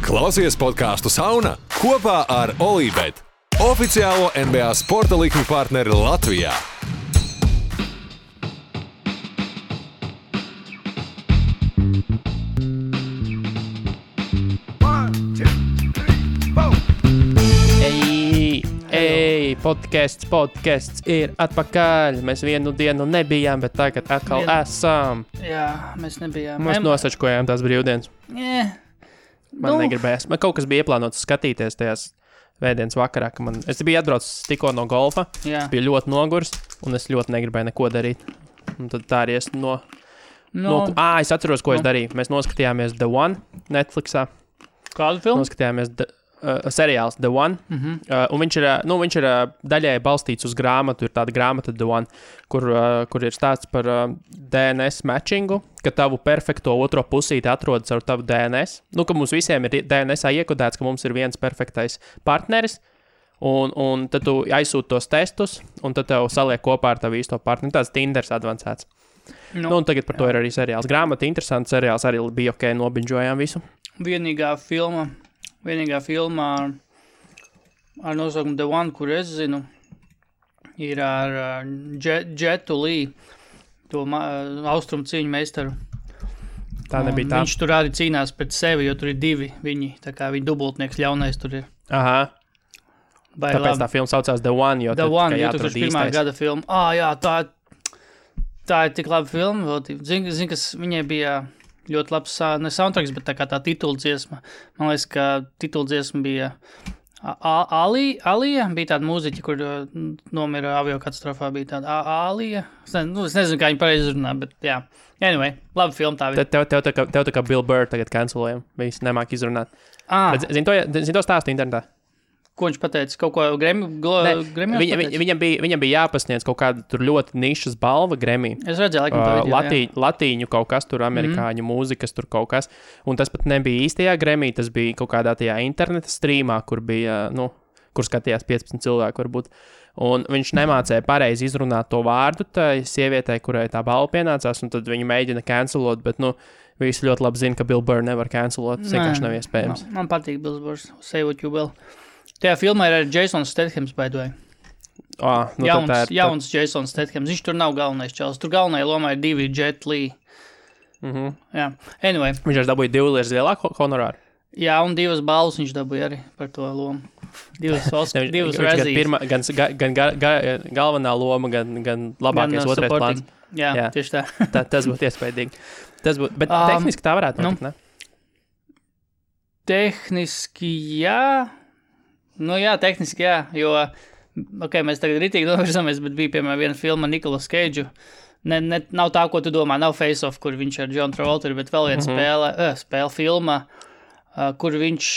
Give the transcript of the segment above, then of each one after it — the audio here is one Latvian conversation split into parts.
Klausies podcastu Sauna kopā ar Olībet, oficiālo NBA sporta likmi partneri Latvijā. Podcasts ir atpakaļ. Mēs vienu dienu nebijām, bet tagad atkal esam. Jā, mēs nebijām. Mēs nosačkojām tās brīvdienas. Man negribējās. Man kaut kas bija ieplānots skatīties tajās vētdienas vakarā, ka es biju atbraucis tikko no golfa. Jā. Es biju ļoti nogurs, un es ļoti negribēju neko darīt. Un tad tā arī es es atceros, ko es darīju. Mēs noskatījāmies The One Netflixā. Kādu filmu? Noskatījāmies seriāls The One, un viņš ir daļai balstīts uz grāmatu, ir tāda grāmata The One, kur ir stāsts par DNS matchingu, ka tavu perfekto otro pusīti atrodas ar tavu DNS, ka mums visiem ir DNSā iekodēts, ka mums ir viens perfektais partneris, un tad tu aizsūti tos testus, un tad tev saliek kopā ar tavu īsto partneri, tāds Tinders advancēts. Un tagad par to ir arī seriāls. Grāmata interesants, seriāls arī bija ok, nobinžojām visu. Vienīgā filma ar nosaukumu The One, kur es zinu, ir ar Jetu Lee, to austrumu cīņu meistaru. Tā nebija tā. Viņš tur arī cīnās pret sevi, jo tur ir divi viņi, tā kā viņa dubultnieks ļaunais tur ir. Aha. Tāpēc tā filma saucās The One, jo The One, jo jāatrod 2001. gada filma. Jā, tā ir tik laba filma. Zini, kas viņai bija ļoti labs, ne soundtracks, bet tā kā tā tituldziesma. Man liekas, ka tituldziesma bija Alija, bija tāda mūziķa, kur nomira aviokatastrofā, bija tāda Alija. Es nezinu, kā viņa pareizi runā, bet jā. Anyway, laba filma tā bija. Tev tā kā Bill Burr tagad cancelējam. Viņš nemāk izrunāt. Zini to stāstu internetā? Ko viņš pateica? Kaut ko Grammy? Viņam bija jāpasniedz kaut kāda tur ļoti nišas balva Grammy. Es redzēju, laikam Latīņu kaut kas tur, amerikāņu mūzikas tur kaut kas. Un tas pat nebija īstajā Grammy, tas bija kaut kādā tajā interneta streamā, kur bija, kur skatījās 15 cilvēku varbūt. Un viņš nemācēja pareizi izrunāt to vārdu tai sievietei, kurai tā balva pienācās, un tad viņa mēģina cancelot, bet, visi ļoti labi zina, ka Bill Burr nevar cancelot. Tas vienkārši nav iespējams. Man patīk Bill Burr, say what you will. Tajā filmā ir arī Jasons Stathams, by the way. Jauns Jasons Stathams. Viņš tur nav galvenais čels. Tur galvenajā lomā ir divi Jet Li. Jā. Anyway. Viņš arī dabūja 2 lietas lielāku honorāru. Jā, un 2 balvas viņš dabūja arī par to lomu. 2 Razzies. Gan galvenā loma, gan labākais otrais plāns. Jā, tieši tā. Tas būtu iespaidīgi. Bet tehniski tā varētu notikt, ne? Tehniski jā. Tehniski jā, jo, mēs tagad ritīgi novirzamies, bet bija, piemēram, viena filma Nicolas Cage'u. Nav tā, ko tu domā, nav Face Off, kur viņš ar John Travolta, bet vēl viena spēle filma, kur viņš,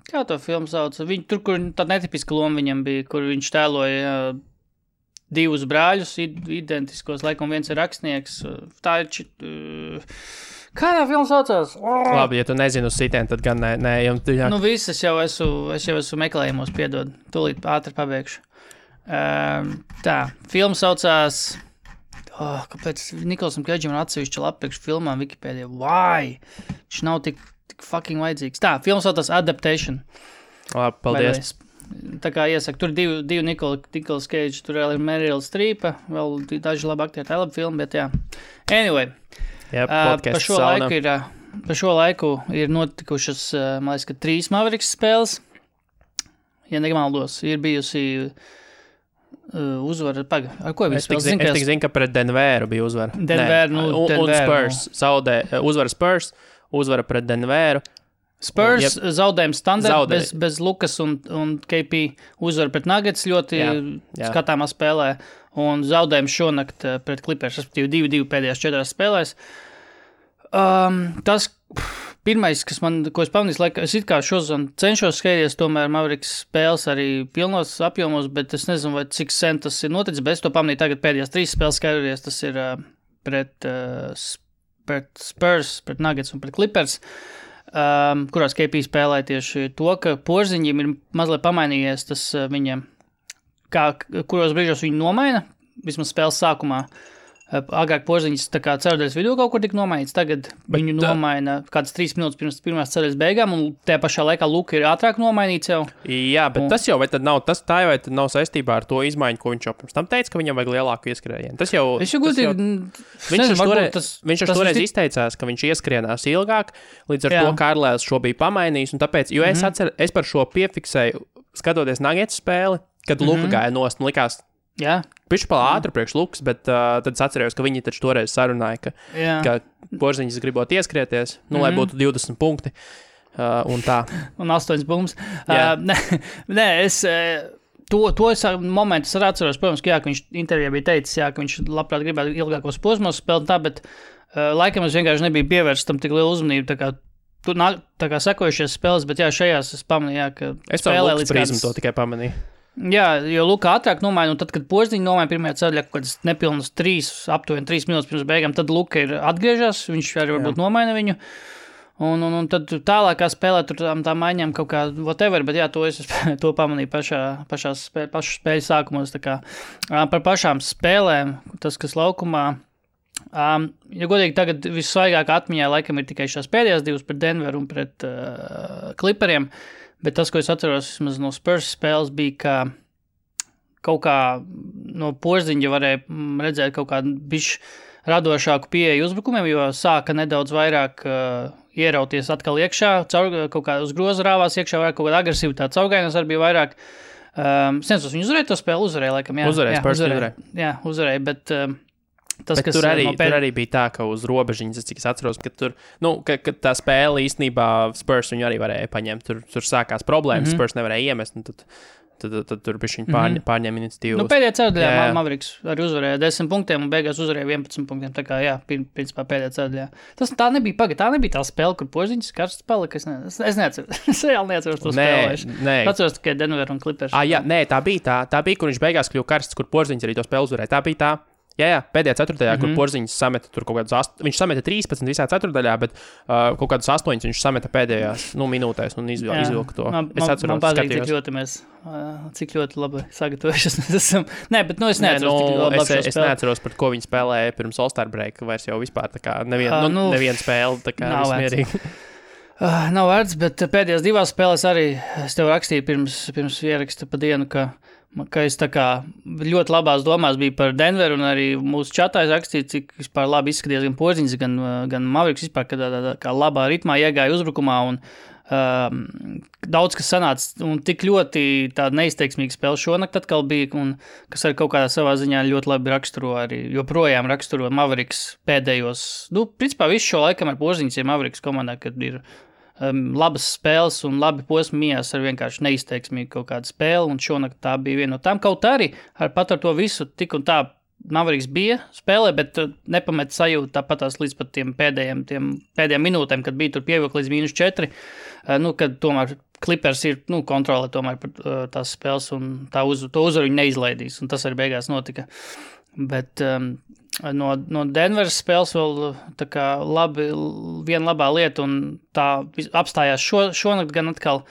kā to filmu sauc, tur, kur tāda netipiska loma viņam bija, kur viņš tēloja 2 brāļus, identiskos, laikam viens ir rakstnieks, tā ir Kādā filma saucās? Labi, ja tu nezini uz sitien, tad gan nē. Viss, es jau esmu meklējumos, piedod. Tūlīt ātri pabeigšu. Tā, filma saucās... kāpēc Nikolasam Keidžam ir atsevišķa lapa priekš filmām Wikipēdijā? Why? Viņš nav tik fucking vajadzīgs. Tā, filma saucās Adaptation. Labi, paldies. Tā kā iesaku, tur divi Nicolas Cage, tur vēl ir Meryl Streepa, vēl daži labi aktieri, tā ir laba filma, bet jā. Anyway. Par šo laiku ir notikušas, man liekas, ka 3 Mavericks spēles. Ja nemaldos, ir bijusi uzvara. Ar ko bija spēles? Es tik zinu, ka pret Denveru bija uzvara. Un Spurs. Uzvara Spurs, uzvara pret Denveru. Spurs zaudējums standarts bez Lukas un KP, uzvara pret Nuggets ļoti skatāmā spēlē. Un zaudējums šonakt pret Clippers, respektīvi 2-2 pēdējās 4 spēlēs. Tas pirmais, ko es pamanīju, es it kā šodien cenšos skatīties, tomēr Mavericks spēles arī pilnos apjomos, bet es nezinu, vai cik sen tas ir noticis, bet es to pamanīju tagad pēdējās 3 spēles skatīties, tas ir pret Spurs, pret Nuggets un pret Clippers. Kurās KP spēlē tieši to, ka Porziņiem ir mazliet pamainījies tas viņam, kuros brīžos viņi nomaina, vismaz spēles sākumā, Agrāk Porziņš tā kā ceturdaļas vidū kaut kur tika nomainīts, tagad viņu nomaina kāds 3 minūtes pirms pirmās ceturdaļas beigām, un tajā pašā laikā Luka ir ātrāk nomainīts jau. Jā, bet tas jau vai tad nav saistībā ar to izmaiņu, ko viņš jau pirms tam teica, ka viņam vajag lielāku ieskrējienu. Tas jau... Viņš toreiz izteicās, ka viņš ieskrienās ilgāk, līdz ar to Kārlēls šo bija pamainījis, un tāpēc, jo es par šo piefiksēju, skatoties Nuggets spēli, kad Luka gāja nost, un likās, pišķi pala ātri priekš Lukas, bet tad es atcerējos, ka viņi taču toreiz sarunāja, ka Porziņš gribot ieskrieties, lai būtu 20 punkti, un tā. Un 8 punktus. Nē, es... To momentu es arī atceros, protams, ka viņš intervijā bija teicis, ka viņš labprāt gribētu ilgākos posmos spēlēt tā, bet laikam es vienkārši nebiju pievērsts tam tik lielu uzmanību, tā kā sekojušies spēles, bet šajās es pamanīju, ka es spēlē līdz prizmu to tikai pamanīju. Jā, jo Luka ātrāk nomaina, un tad, kad Porziņš nomaina pirmajā ceļā, kaut kādas nepilnas aptuveni 3 minūtes pirms beigām, tad Luka ir atgriežās, viņš arī varbūt nomaina viņu. Un tad tālākā spēlē tur tā maiņām kaut kā whatever, bet to pamanīju pašu spēļu sākumos. Tā kā par pašām spēlēm, tas, kas laukumā, ja godīgi tagad vissvaigāk atmiņā laikam ir tikai šās pēdējās divas pret Denveru un pret Clipperiem, bet tas, ko es atceros vismaz no Spurs spēles, bija, ka kaut kā no Porziņa varēja redzēt kaut kādu bišķi radošāku pieeju uzbrukumiem, jo sāka nedaudz vairāk ierauties atkal iekšā, kaut kā uz groza rāvās iekšā, vairāk kaut kāda agresīvitāte, caurgainas arī bija vairāk. Sensos, viņi uzvarēja to spēli, laikam, uzvarēja, bet tas, kas tur arī bija tā, ka uz robežiņas, cik es atceros, ka tur, ka tā spēle īstenībā Spurs viņu arī varēja paņemt, tur sākās problēmas, Spurs nevarēja iemest, un tad tur bija viņi pārņēma iniciatīvu. Pēdējā ceturdaļā Mavericks arī uzvarēja 10 punktiem un beigās uzvarēja 11 punktiem. Tā kā, principā pēdējā ceturdaļā. Tā nebija tā spēle, kur Porziņš karsts palika. Es neatceros. Es reāli neatceros to spēli. Atceros tikai Denver un Clippers. Tā bija, kur viņš beigās kļuva karsts, kur Porziņš arī to spēli uzvarēja. Tā bija tā. Jā, pēdējā ceturtajā, kur Porziņš sameta tur kaut kādus 8, viņš sameta 13 visā ceturtajā, bet kaut kādus 8 viņš sameta pēdējās minūtēs un izvilka to. Es atceros, man patīk, cik ļoti labi sagatavojušies mēs esam. Nē, bet es neatceros, es neatceros, par ko viņi spēlēja pirms All-Star break, vairs jau vispār tā kā neviena spēle, tā kā vismierīgi. Nav vērts, bet pēdējās divās spēlēs arī es tev rakstīju pirms ieraksta pa dienu, ka es tā kā ļoti labās domās biju par Denveru, un arī mūsu čatā es rakstīju, cik vispār labi izskaties gan Porziņš, gan Mavericks vispār, kad kā labā ritmā iegāja uzbrukumā, un daudz kas sanāca, un tik ļoti tāda neizteiksmīga spēle šonakt atkal bija, un kas arī kaut kādā savā ziņā ļoti labi raksturo arī, joprojām raksturo Mavericks pēdējos, principā visu šo laikam ar Porziņš ir Mavericks komandā, kad ir labas spēles un labi posmi mijās ar vienkārši neizteiksmīgu kaut kādu spēli, un šonakt tā bija viena no tām. Kaut arī pat ar to visu tik un tā Mavericks bija spēlē, bet nepamet sajūtu tāpatās līdz pat tiem pēdējiem minūtēm, kad bija tur pievilkt līdz -4, kad tomēr Clippers ir kontrolē tomēr par tās spēles, un to uzvaru viņi neizlaidīs, un tas arī beigās notika. Bet no Denveras spēles vēl tā kā viena labā lieta, un tā apstājās šonakt gan atkal,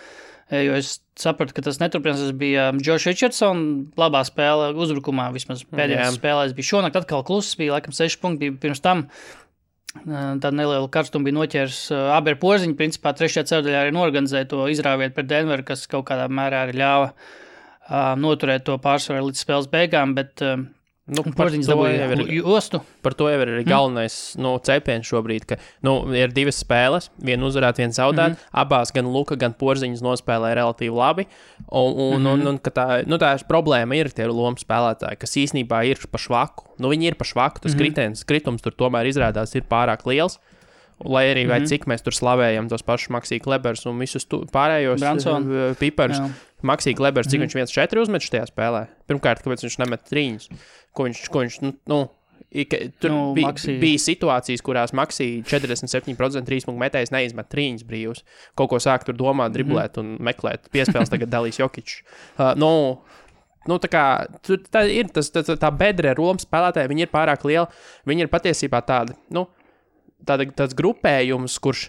jo es sapratu, ka tas neturpinās, tas bija Josh Richardson, labā spēle uzbrukumā, vismaz pēdējās spēlēs bija šonakt atkal kluss, bija laikam 6 punkti, bija pirms tam tāda neliela karstuma bija noķērs abi ar Porziņu, principā 3. ceturdaļā arī norganizēja to izrāviet pret Denveru, kas kaut kādā mērā arī ļāva noturēt to pārsvaru līdz spēles beigām, bet Porziņš dabūja jostu. Par to jau ir arī galvenais cepiens šobrīd, ka ir 2 spēles, viena uzvarēt, viena zaudēt, abās gan Luka, gan Porziņš nospēlē relatīvi labi, un ka tā problēma ir tie lomu spēlētāji, kas īsnībā ir pa švaku. Viņi ir pa švaku, tas kritums tur tomēr izrādās ir pārāk liels. Lai arī vai cik mēs tur slavējam tos pašus Maxī Klebers un visus pārējos piparus. Maxī Klebers, cik viņš 1-4 uzmet šajā spēlē? Pirmkārt, kāpēc viņš nemet 3? Ko viņš tur bija situācijas, kurās Maxī 47% 3 punktu metējs neizmet 3 brīvus. Kaut ko sāk tur domāt, driblēt un meklēt. Piespēles tagad dalīs Jokičs. Tā kā tā ir tā bedre Romas spēlētāji, viņi ir pārāk liela. Viņi ir patiesībā tādi, tāds grupējums, kurš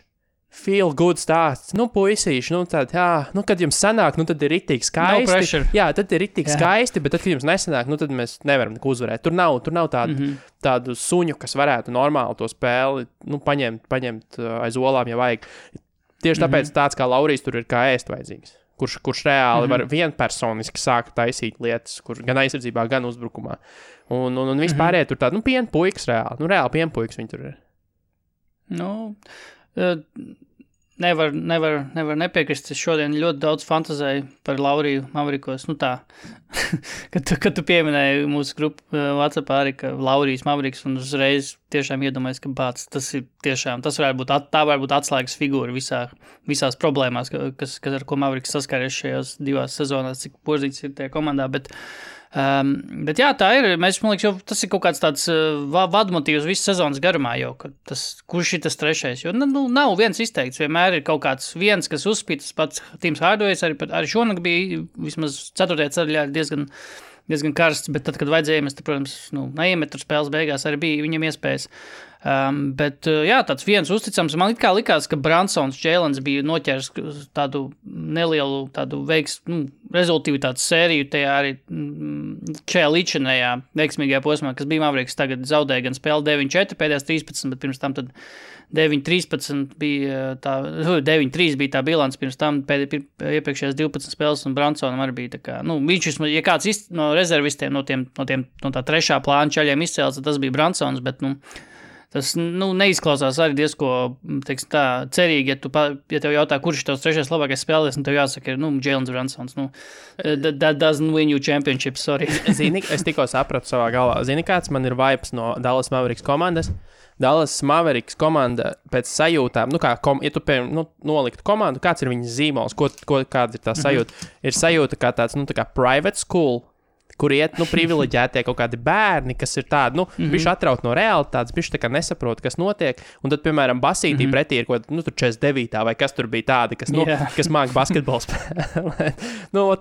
feel good stāsts. Nu, puisīši, nu, tād, jā, nu, kad jums sanāk, nu, tad ir riktīgi skaisti. No pressure. Jā, tad ir riktīgi skaisti, bet tad, kad jums nesanāk, nu, tad mēs nevaram neko uzvarēt. Tur nav tādu suņu, kas varētu normāli to spēli, nu, paņemt aiz olām, ja vajag. Tieši tāpēc tāds kā Laurijs tur ir kā ēst vajadzīgs. Kurš reāli var vienpersoniski sākt taisīt lietas, kur gan aizsardzībā, gan uzbrukumā. Un vispārējie tur tādi, nu, pienpuikas reāli. Nu, reāli pienpuikas viņi tur ir. Nu... Nevar nepiekrist. Es šodien ļoti daudz fantazēju par Lauriju Mavrikos. Nu tā, kad tu pieminēji mūsu grupu WhatsAppā arī, ka Laurijs Mavriks un uzreiz tiešām iedomājies, ka tas varētu būt atslēgas figūra visās problēmās, kas ar ko Mavriks saskāries šajās 2 sezonās, cik pozīcijas ir tajā komandā, bet jā, tā ir. Man liekas, jau tas ir kaut kāds tāds vadmotīvs visas sezonas garumā jau, kurš ir tas trešais. Jo nav viens izteikts, vienmēr ir kaut kāds viens, kas uzspīd, tas pats Tims Hardaway's, arī šonakt bija vismaz 4. ceļā diezgan karsts, bet tad, kad vajadzēja, mēs, protams, neiemet tur spēles beigās, arī bija viņam iespējas. Bet, jā, tāds viens uzticams. Man likās, ka Bransons Jēlens bija noķēris tādu nelielu rezultīvitātes sēriju tajā arī šajā līdzinējā veiksmīgajā posmā, kas bija Mavriks. Tagad zaudēja gan spēli 9-4 pēdējās 13, bet pirms tam tad 9-13 bija 9-3 bija tā bilants, pirms tam iepriekšējās 12 spēles, un Bransonam arī bija tā kā, viņš, ja kāds no rezervistiem, no tā trešā plāna čaļiem izcēlās, tas bija Bransons, bet, tas, neizklausās arī diezko, teiksim tā, cerīgi, ja tev jautā, kurš ir tavs trešais labākais spēlēs, un tev jāsaka, ir, Jēlens Bransons, that doesn't win you championship, sorry. Zini, es tikko sapratu savā galvā. Zini, kāds man ir vibes no Dallas Mavericks komandas? Dallas Mavericks komanda pēc sajūtām, ja tu noliktu komandu, kāds ir viņas zīmols, kāda ir tā sajūta? Ir sajūta kā tāds, tā kā private school, kur iet, privileģētie kaut kādi bērni, kas ir tādi, bišķi atraut no realitātes, bišķi tā kā nesaprot, kas notiek, un tad, piemēram, basītī pretī ir kaut kāda, tur 49. vai kas tur bija tādi, kas māk basketbols spēlēt.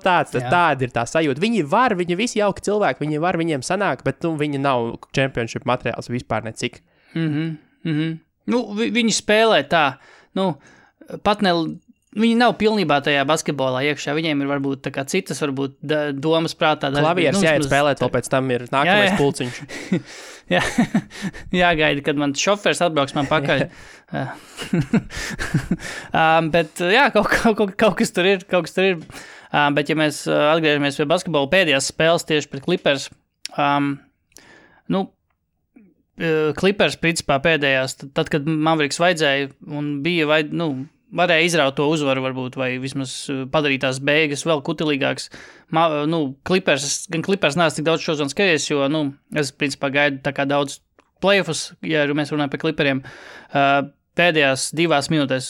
Tāda ir tā sajūta. Viņi visi jauki cilvēki, viņiem sanāk, bet, viņi nav championship materiāls vispār necik. Viņi spēlē tā, pat ne... Viņi nav pilnībā tajā basketbolā iekšā. Viņiem ir varbūt tā kā citas domas prātā. Klavieres jāiet spēlēt, vēl pēc tam ir nākamais pulciņš. Jāgaida, kad man šofers atbrauks man pakaļ. Bet jā, kaut kas tur ir. Bet ja mēs atgriežamies pie basketbola pēdējās spēles tieši pret Clippers, Clippers principā pēdējās, tad, kad Mavericks vajadzēja un bija varēja izraut to uzvaru varbūt, vai vismaz padarīt tās beigas vēl kutelīgāks. Clippers neesmu tik daudz šodien skaties, jo, es principā gaidu tā kā daudz playoffus, ja mēs runājam par Clipperiem. Pēdējās 2 minūtēs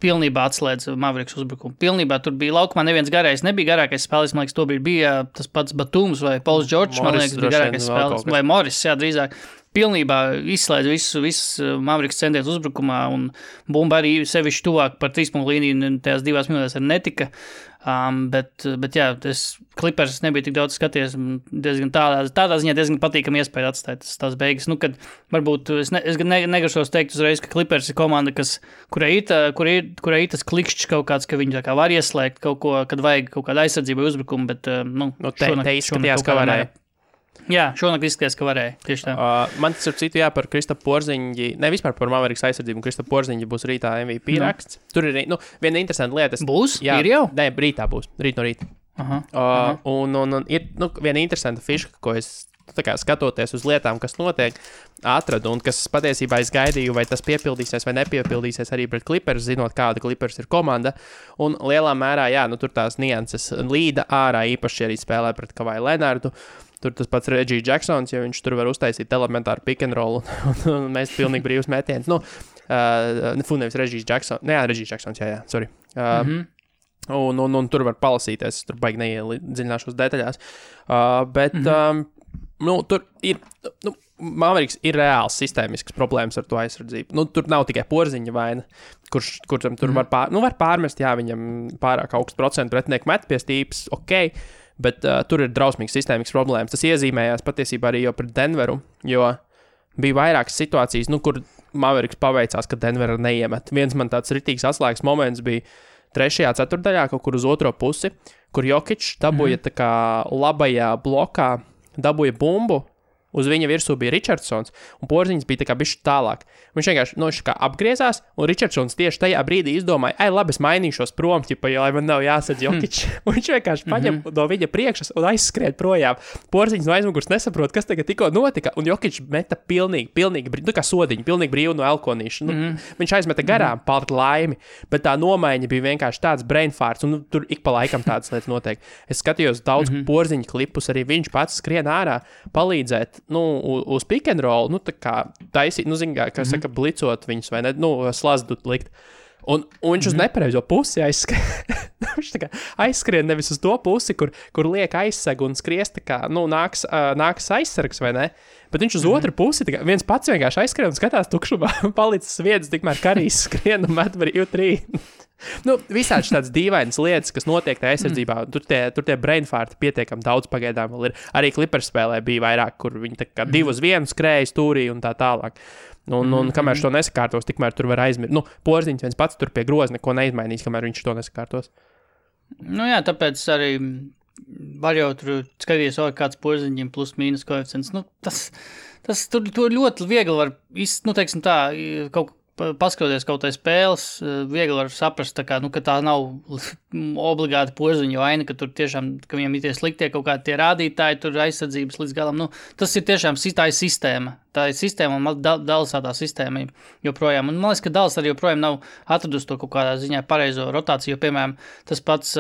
pilnībā atslēdz Mavericks uzbrukumu. Pilnībā tur bija laukumā neviens garais, nebija garākais spēlēs, man liekas, to bija tas pats Batums vai Pauls Džordžs, man liekas, bija garākais spēlēs, vai Morris, jā, drīzāk. Pilnībā izslēdz visu Mavericks centienus uzbrukumā, un bumba arī sevišķi tuvāk par 3-punktu līniju tajās 2 minūtēs arī netika. Bet jā, Clippers nebija tik daudz skaties, diezgan tādā ziņā diezgan patīkami iespēja atstāt tās beigas. Kad varbūt es negrašos teikt uzreiz, ka Clippers ir komanda, kurai ir tas klikšķis kaut kāds, ka viņi tā kā var ieslēgt kaut ko, kad vajag kaut kādu aizsardzību vai uzbrukumu, bet te izskatījās, ka varēja. Jā, šonakt izskatījās, ka varēja. Tieši tā. Man tas ir citu, par Kristapu Porziņģi, ne vispār par Mavericks aizsardzību, un Kristapu Porziņģi būs rītā MVP raksts. Tur ir, viena interesanta lieta. Būs? Jā, ir jau? Nē, rītā būs. Rīt no rīta. Un ir, viena interesanta fiška, ko es tā kā skatoties uz lietām, kas notiek, atradu, un kas patiesībā es gaidīju, vai tas piepildīsies vai nepiepildīsies arī pret Clippers, zinot, kāda Clippers ir komanda. Un lielā mērā, tur tās nianses līda ārā, īpaši arī spēlē pret Kawhi Leonardu. Tur tas pats Reggie Jacksons, ja viņš tur var uztaisīt elementāru pick and roll un mēs pilnīgi brīvs mētiens. Nevis Reggie Jacksons. Reggie Jacksons, jā, sorry. Un tur var palasīties, tur baigi neiedziļināšos detaļās. Bet tur ir, Mavericks ir reāls sistēmisks problēmas ar to aizsardzību. Tur nav tikai Porziņa vaina, kuram tur var pārmest, jā, viņam pārāk augsts procentu pretinieku met pie stīpas, ok. Bet tur ir drausmīgs sistēmisks problēmas. Tas iezīmējās patiesībā arī jau pret Denveru, jo bija vairākas situācijas, kur Mavericks paveicās, ka Denver neiemet. Viens man tāds ritīgs atslēgas moments bija 3. ceturtdaļā, kaut kur uz otro pusi, kur Jokic dabūja tā kā labajā blokā, dabūja bumbu, uz viņa virsū bija Richardsons, un Porziņš bija tā kā bišķi tālāk. Viņš vienkārši apgriezās, un Richardsons tieši tajā brīdī izdomāja, labi, es mainīšos prom, lai man nav jāsadz Jokic. Un viņš vienkārši paņem no viņa priekšas un aizskrien projām. Porziņš no aizmugurs nesaprot, kas tagad tikko notika, un Jokic meta pilnīgi kā sodiņu, pilnīgi brīvu no elkonīša. Viņš aizmeta garām par laimi, bet tā nomaiņa bija vienkārši tāds brainfarts, un tur ik pa laikam tādas lietas notiek. Es skatījos daudz Porziņa klipus, arī viņš pats skrien ārā palīdzēt, uz pick and roll, tā kā taisīt, kā saka, blicot viņus, vai ne, slazdu likt. Un viņš uz nepareizo pusi aizskrien. Viņš tā kā aizskrien nevis uz to pusi, kur liek aizseg un skries, tā kā, nāks aizsargs, vai ne? Bet viņš uz otru pusi, tā kā viens pats vienkārši aizskrien un skatās tukšumā, palicis vietas, tikmēr Karijs skrien un met brīvu trīnu. Visādi tādas dīvainas lietas, kas notiek tajā aizsardzībā, tur tie brainfarti pietiekami daudz pagaidām vēl ir. Arī Clippers spēlē bija vairāk, kur viņi tā kā 2-1 skrēja stūrī un tā tālāk. Un kamēr to nesakārtos, tikmēr tur var aizmirst. Porziņš viens pats tur pie groza neko neizmainīs, kamēr viņš to nesakārtos. Jā, tāpēc arī var jau tur skatīties, kāds Porziņiem plus mīnus koeficients. Tas tur ļoti viegli var, teiksim tā, paskatoties kaut tai spēles, viegli var saprast, ka tā nav obligāti Porziņa vaina, ka tur tiešām, ka viņam ir tie sliktie kaut kādi tie rādītāji, tur aizsardzības līdz galam. Tas ir tiešām tā ir sistēma. Tā ir sistēma un Dallasā tā sistēma joprojām. Un man liekas, ka Dallas arī joprojām nav atradusi to kaut kādā ziņā pareizo rotāciju, jo, piemēram, tas pats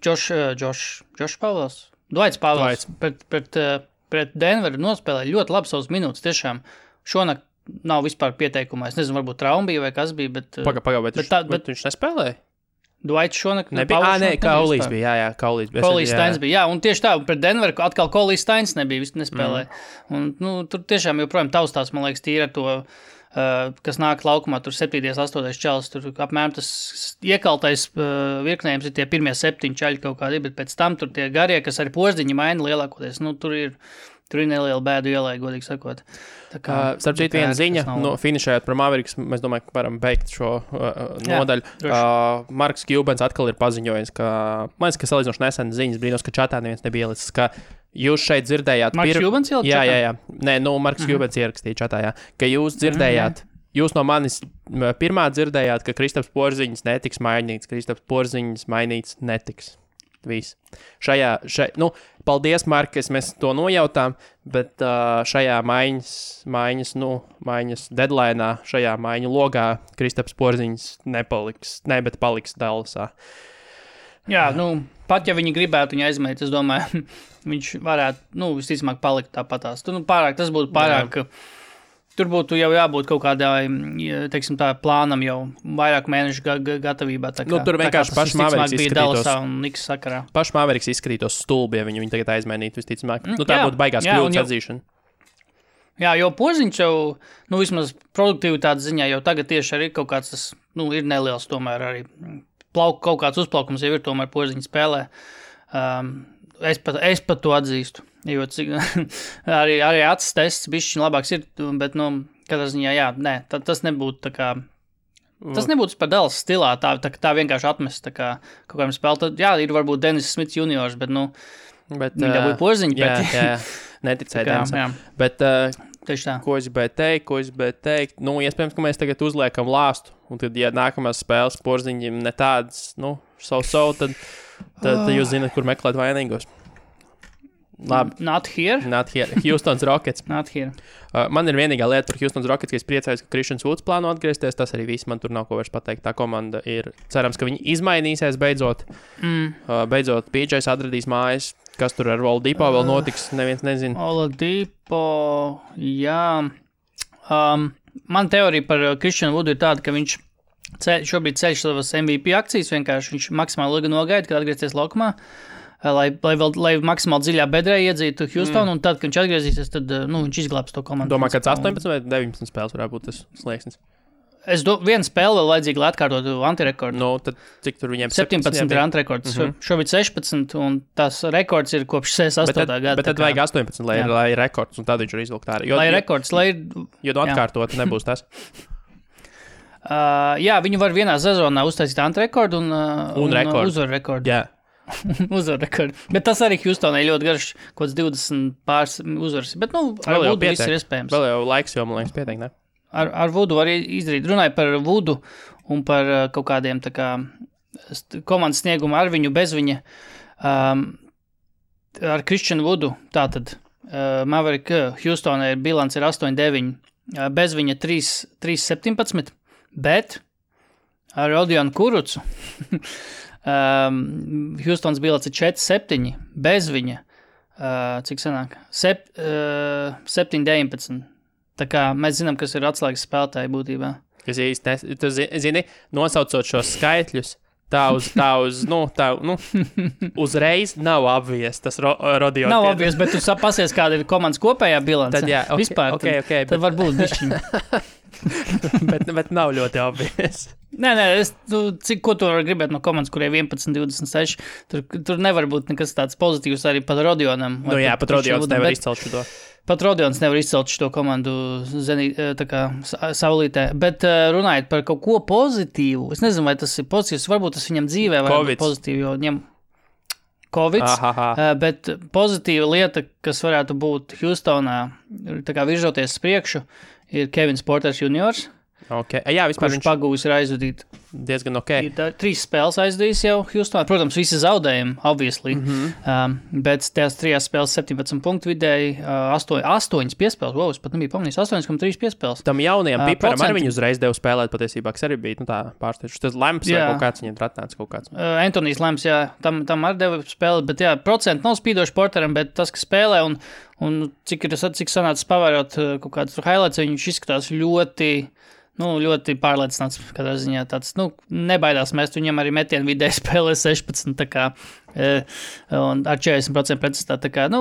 Josh Pavels, Dwights Pavels pret Denveru nospēlēja ļoti labi savus minūtes, tiešām šonakt nav vispār pieteikumā. Es nezinu, varbūt trauma bija vai kas bija, bet... Bet viņš nespēlēja? Dwights šonakt... Kaulīs bija, jā, Kaulīs bija. Kaulīs Steins bija, jā, un tieši tā, pret Denveru atkal Kaulīs Steins nebija, visu nespēlēja. Un, tur tiešām joprojām taustās, man liekas, tīri ar to, kas nāk laukumā, tur 7. 8. čalis, tur apmēram tas iekaltais virknējums ir tie pirmie 7 čaļi kaut kādi, bet pēc tam tur tie garie, kas arī Porziņi maina lielākoties, tur ir neliela bēdu ielai, godīgi sakot. Starp citu viena ziņa, finišējot par Mavericks, mēs domāju, ka varam beigt šo nodaļu. Marks Cubans atkal ir paziņojis, man liekas, ka salīdzinoši nesen ziņas brīnos, ka čatā neviens nebija ielicis, ka jūs šeit dzirdējāt... Marks Cubans ielicis čatā? Jā. Nē, Marks Cubans ierakstīja čatā, jā. Ka jūs dzirdējāt, jūs no manis pirmā dzirdējāt, ka Kristaps Porziņš netiks mainīts, Kristaps Porziņš mainīts netiks. Viss. Paldies, Markes, mēs to nojautām, bet šajā maiņas deadline'ā, šajā maiņu logā Kristaps Porziņš bet paliks Dallasā. Jā, pat ja viņi gribētu viņu aizmēt, es domāju, viņš varētu, visticamāk palikt tāpatās. Tas būtu pārāk... Tur būtu jau jābūt kaut kādai, teiksim tā, plānam jau vairāk mēnešu gatavībā. Tur vienkārši paši Mavericks izskatītos. Paši Mavericks izskatītos stulbi, ja viņi tagad aizmainītu visticamāk. Tā būtu baigās kļūdas atzīšana. Jā, jo Porziņš jau, vismaz produktivitātes ziņā jau tagad tieši arī kaut kāds tas, ir neliels tomēr arī. Kaut kāds uzplaukums jau ir tomēr Porziņa spēlē. Es pat to atzīstu. Jo arī acis tests bišķiņ labāks ir, bet, katrā ziņā, jā, nē, tas nebūtu tā kā, tas nebūtu par Dallas stilā, tā vienkārši atmest, tā kā kaut kādiem spēlēt, jā, ir varbūt Dennis Smits juniors, bet, viņi dabūja Porziņu, bet... Jā, neticēja Dennisam. Bet, ko es gribēju teikt, iespējams, ka mēs tagad uzliekam lāstu, un tad, ja nākamās spēles Porziņiem ne tādas, tad jūs zināt, kur meklēt vainīgos. Labi. Not here. Houstons Rockets. Not here. Man ir vienīgā lieta par Houstons Rockets, ka es priecājos, ka Christians Woods plāno atgriezties. Tas arī viss, man tur nav ko vairs pateikt. Tā komanda ir, cerams, ka viņi izmainīsies beidzot. Beidzot, PJs atradīs mājas. Kas tur ar Oladipo vēl notiks, neviens nezina. Oladipo, jā. Man teorija par Christianu Woodu ir tāda, ka viņš šobrīd ceļš savas MVP akcijas, vienkārši viņš maksimāli ilgi nogaida, kad atgriezties laukumā. Lai maksimāli dziļā bedrē iedzītu Houstonu, un tad, kad viņš atgriezīsies, tad viņš izglābs to komandu. Domā, kāds 18 vai 19 spēles varētu būt tas slieksnis? Viena spēle vēl vajadzīga, lai atkārtotu antirekordu. Tad cik tur viņiem 17 ir antirekords. Šobrīd 16, un tas rekords ir kopš 68. gada. Bet tad vajag 18, lai ir rekords, un tad viņš ir izvilkt ārā. Lai rekords, lai ir... Jo atkārtot nebūs tas. Jā, viņi var vienā sezonā uztaisīt antrekordu un uzvaru rekordu. Jā. Uzvaru rekordu. Bet tas arī Houstonai ļoti garš, kaut kāds 20 pāris uzvaras. Bet, ar Vudu viss ir iespējams. Vēl jau laiks, jo man liekas pietiek, ne? Ar Vudu var izdarīt. Runāju par Vudu un par kaut kādiem tā kā komandas sniegumu ar viņu, bez viņa. Ar Christianu Vudu, tātad Maverick Houstonai bilants ir 8-9, bez viņa 3-17, bet ar Rodionu Kurucu Houstons bilants ir 4-7, bez viņa, cik sanāk, 7-19. Tā kā mēs zinām, kas ir atslēgas spēlētāji būtībā. Kas īsti, tu zini, nosaucot šos skaitļus, tā uzreiz nav obvious tas Rodionu. Nav obvious, bet tu pasies, kāda ir komandas kopējā bilance. Tad jā, vispār, tad varbūt bišķiņ. bet nav ļoti obvious. Nē, ko tu vari gribēt no komandas, kurai 11-26, tur nevar būt nekas tāds pozitīvs arī pat Rodionam. Pat Rodions nevar izcelt šo. Pat Rodions nevar izcelt šo komandu saulītē, bet runājot par kaut ko pozitīvu, es nezinu, vai tas ir pozitīvs, varbūt tas viņam dzīvē var būt pozitīvi, jo viņam Covids, bet pozitīva lieta, kas varētu būt Houstonā, tā kā virzoties priekšu, ir Kevins Porters juniors. Okay. Jā, vispār viņš pagūs ir aizvadīt. Diezgan ok. Ir 3 spēles aizdījis jau Houstonā. Protams, visi zaudējumi, obviously. Bet tās 3 spēles 17 punktu vidēji, 8 piespēles. Wow, es pat nebiju pamanījis. 8,3 piespēles. Tam jaunajam piparam arī viņu uzreiz devu spēlēt patiesībā, kas arī bija tā pārsteidzoši. Tas Lemps vai kaut kāds viņam atnāca kaut kāds. Antonijs Lemps, jā, tam arī deva spēlēt, bet jā, procenti nav spīdoši Porteram, bet tas, kas spēlē un cik sanācis pavērot kaut kādus highlights, viņš izskatās ļoti pārliecināts, katrā ziņā tāds, nebaidās mest, viņam arī metienu vidēji spēlē 16, tā kā, un ar 40% precizitāti, tā kā,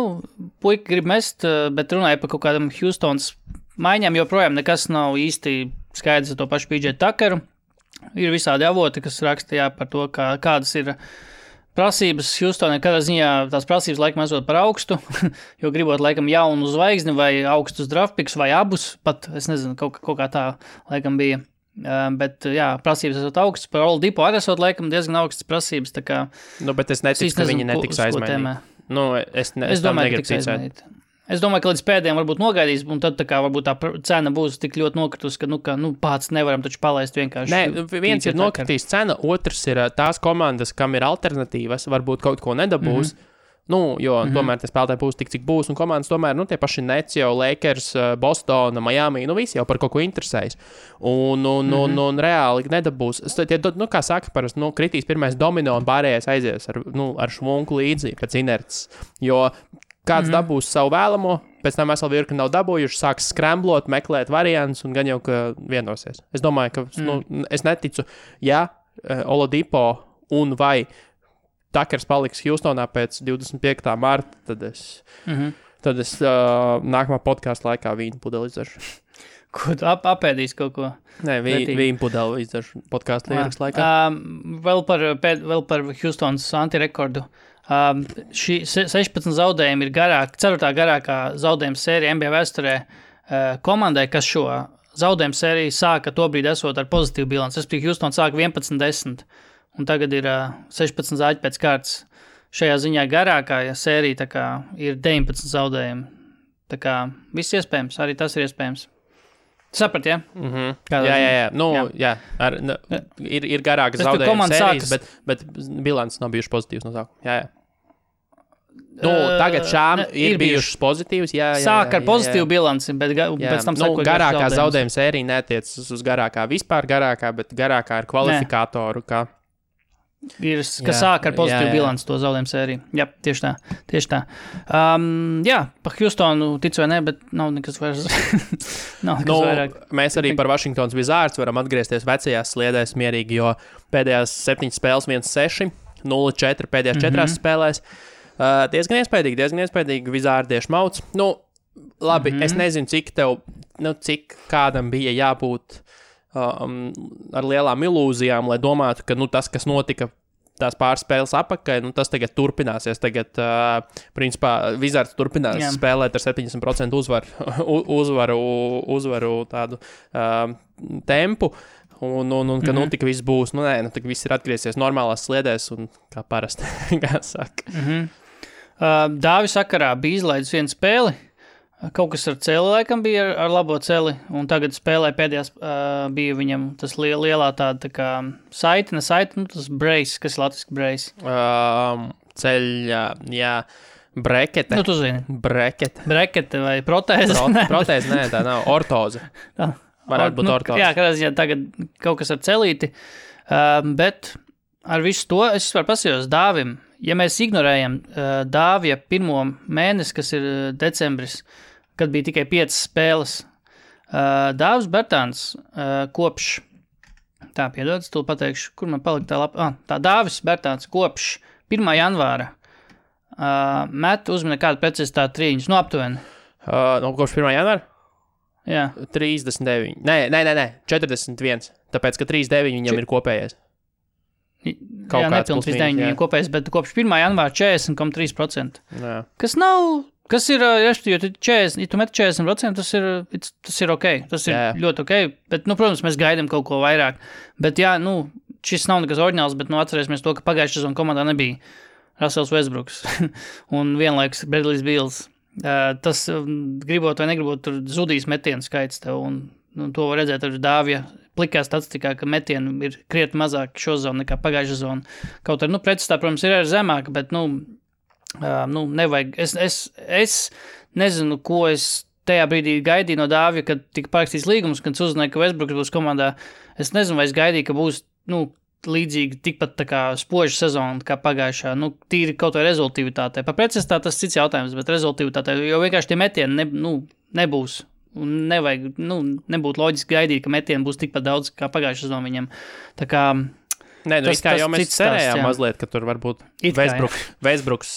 puika grib mest, bet runāja par kaut kādam Houstons maiņām, joprojām nekas nav īsti skaidrs ar to pašu PJ Tuckeru. Ir visādi avoti, kas raksta, par to, kādas ir prasības Houstonai, kādā ziņā tās prasības laikam esot par augstu, jo gribot laikam jaunu zvaigzni vai augstus draftpiks vai abus, pat, es nezinu, kaut kā tā laikam bija. Bet, jā, prasības esot augstas, par Oladipo arī esot laikam diezgan augstas prasības, tā kā... bet es neticu, ka viņi netiks aizmainīt. Es domāju, ka tiks aizmainīt. Es domāju, ka līdz pēdējiem varbūt nogaidīs, un tad tā kā varbūt tā cena būs tik ļoti nokritus, ka pats nevaram taču palaist vienkārši. Nē, viens ir nokritīs cena, otrs ir tās komandas, kam ir alternatīvas, varbūt kaut ko nedabūs, jo tomēr tie spēlētāji būs tik, cik būs, un komandas tomēr, tie paši Nets jau, Lakers, Bostona, Miami, visi jau par kaut ko interesējas. Un reāli nedabūs. Kā saka, parasti, kritīs pirmais domino un pārējais aizies ar šmunku līdzi pēc inerces, jo kāds dabūs savu vēlamo, pēc tam veselu virkni nav dabūjuši, sāks skremblot, meklēt variantus un gan jau, ka vienosies. Es domāju, ka es neticu, Oladipo un vai Tuckers paliks Houstonā pēc 25. marta, tad es nākamā podkāsta laikā vīnu pudeli izdaršu. Ko tu apēdīs kaut ko? Nē, vīnu pudeli izdaršu podkāsta līras laikā. Vēl par Houstons antirekordu. Šī 16 zaudējumi ir 4. garākā zaudējuma sērija NBA vēsturē komandai, kas šo zaudējumu sēriju sāka tobrīd esot ar pozitīvu bilanci. Houston sāka 11-10, un tagad ir 16 zaļi pēc kārtas. Šajā ziņā garākā sērija tā kā ir 19 zaudējumi. Tā kā viss iespējams, arī tas ir iespējams. Saprat, ja? Jā. Ir garākas zaudējuma sērijas, bet bilants nav bijuši pozitīvs no sākuma. Jā. Tagad šām ir bijušas pozitīvas. Sāk ar pozitīvu bilanci, bet pēc tam sako garākā zaudējuma sērija netiecas uz garākā vispār garākā, bet garākā ir kvalifikātoru, kas sāk ar pozitīvu bilanci to zaudējumu sēriju. Jā, tieši tā. Pa Houstonu ticu vai ne, bet nav nekas vairs. Vairāk. Mēs arī par Washingtons Wizards varam atgriezties vecajās sliedēs mierīgi, jo pēdējās 7 spēles 1-6, 0-4 pēdējās 4 spēlēs. Diezgan iespaidīgi Wizardieši mauc. Labi, es nezinu, cik kādam bija jābūt ar lielām ilūzijām, lai domātu, ka tas, kas notika tās pāris spēles apakai, tas tagad turpināsies. Tagad, principā, Wizards turpinās spēlēt ar 70% uzvaru tādu tempu. un ka tik viss būs, tik viss ir atgriezies normālās sliedēs un kā parasti, kā saka. Dāvi sakarā bija izlaidis vienu spēli, kaut kas ar celi laikam bija ar labo celi, un tagad spēlē pēdējās bija viņam tas lielā tāda tā kā saite, tas brace, kas ir latviski brace. Ceļa, jā, brekete. Nu, tu zini. Brekete vai protēze? Protēze, nē, tā nav, ortoze. Varētu būt ortoze. Jā, kādā ziņā tagad kaut kas ar celīti, bet ar visu to es vispār pasījos Dāvim. Ja mēs ignorējam Dāvija pirmo mēnesi, kas ir decembris, kad bija tikai 5 spēles, Dāvis Bertāns kopš, piedod, tu pateikšu, kur man palika tā lapa, tā Dāvis Bertāns kopš 1. janvāra met uzmina kādu precizitāti trīņus, aptuveni. Kopš 1. janvāra? Jā. 39. Nē, 41. Tāpēc, ka 39 viņam ir kopējais. Jā, nepilni 39 viņam kopējais, bet kopš 1. janvāra 40,3%. Jā. Kas ir, ja tu met 40%, tas ir ok, tas ir ļoti ok, bet, protams, mēs gaidām kaut ko vairāk, bet jā, šis nav nekas oriģināls, bet atcerēsimies to, ka pagājušajā sezonā komandā nebija Russells Westbrooks un vienlaikus Bradley's Beals. Tas, gribot vai negribot, tur zudīs metienu skaits tev, un to var redzēt ar Dāvija plikā statistikā, ka metienu ir krietni mazāk šo zonu nekā pagājušā zona. Kaut arī, pretstā, protams, ir arī zemāka, bet, nevajag. Es nezinu, ko es tajā brīdī gaidīju no Dāvija, kad tika parakstīts līgums, kad uzzināja, ka Westbrooks būs komandā. Es nezinu, vai es gaidīju, ka būs, līdzīgi tikpat tā kā spoža sezona kā pagājušā, tīri kaut vai rezultīvitātei. Par precizitāti tas cits jautājums, bet rezultīvitātei, jo vienkārši tie metieni nebūs. Un nevajag, nebūtu loģiski gaidīt, ka metieni būs tikpat daudz kā pagājušā sezona viņam. Tā kā Nē, jau mēs cerējām mazliet, ka tur varbūt Westbrooks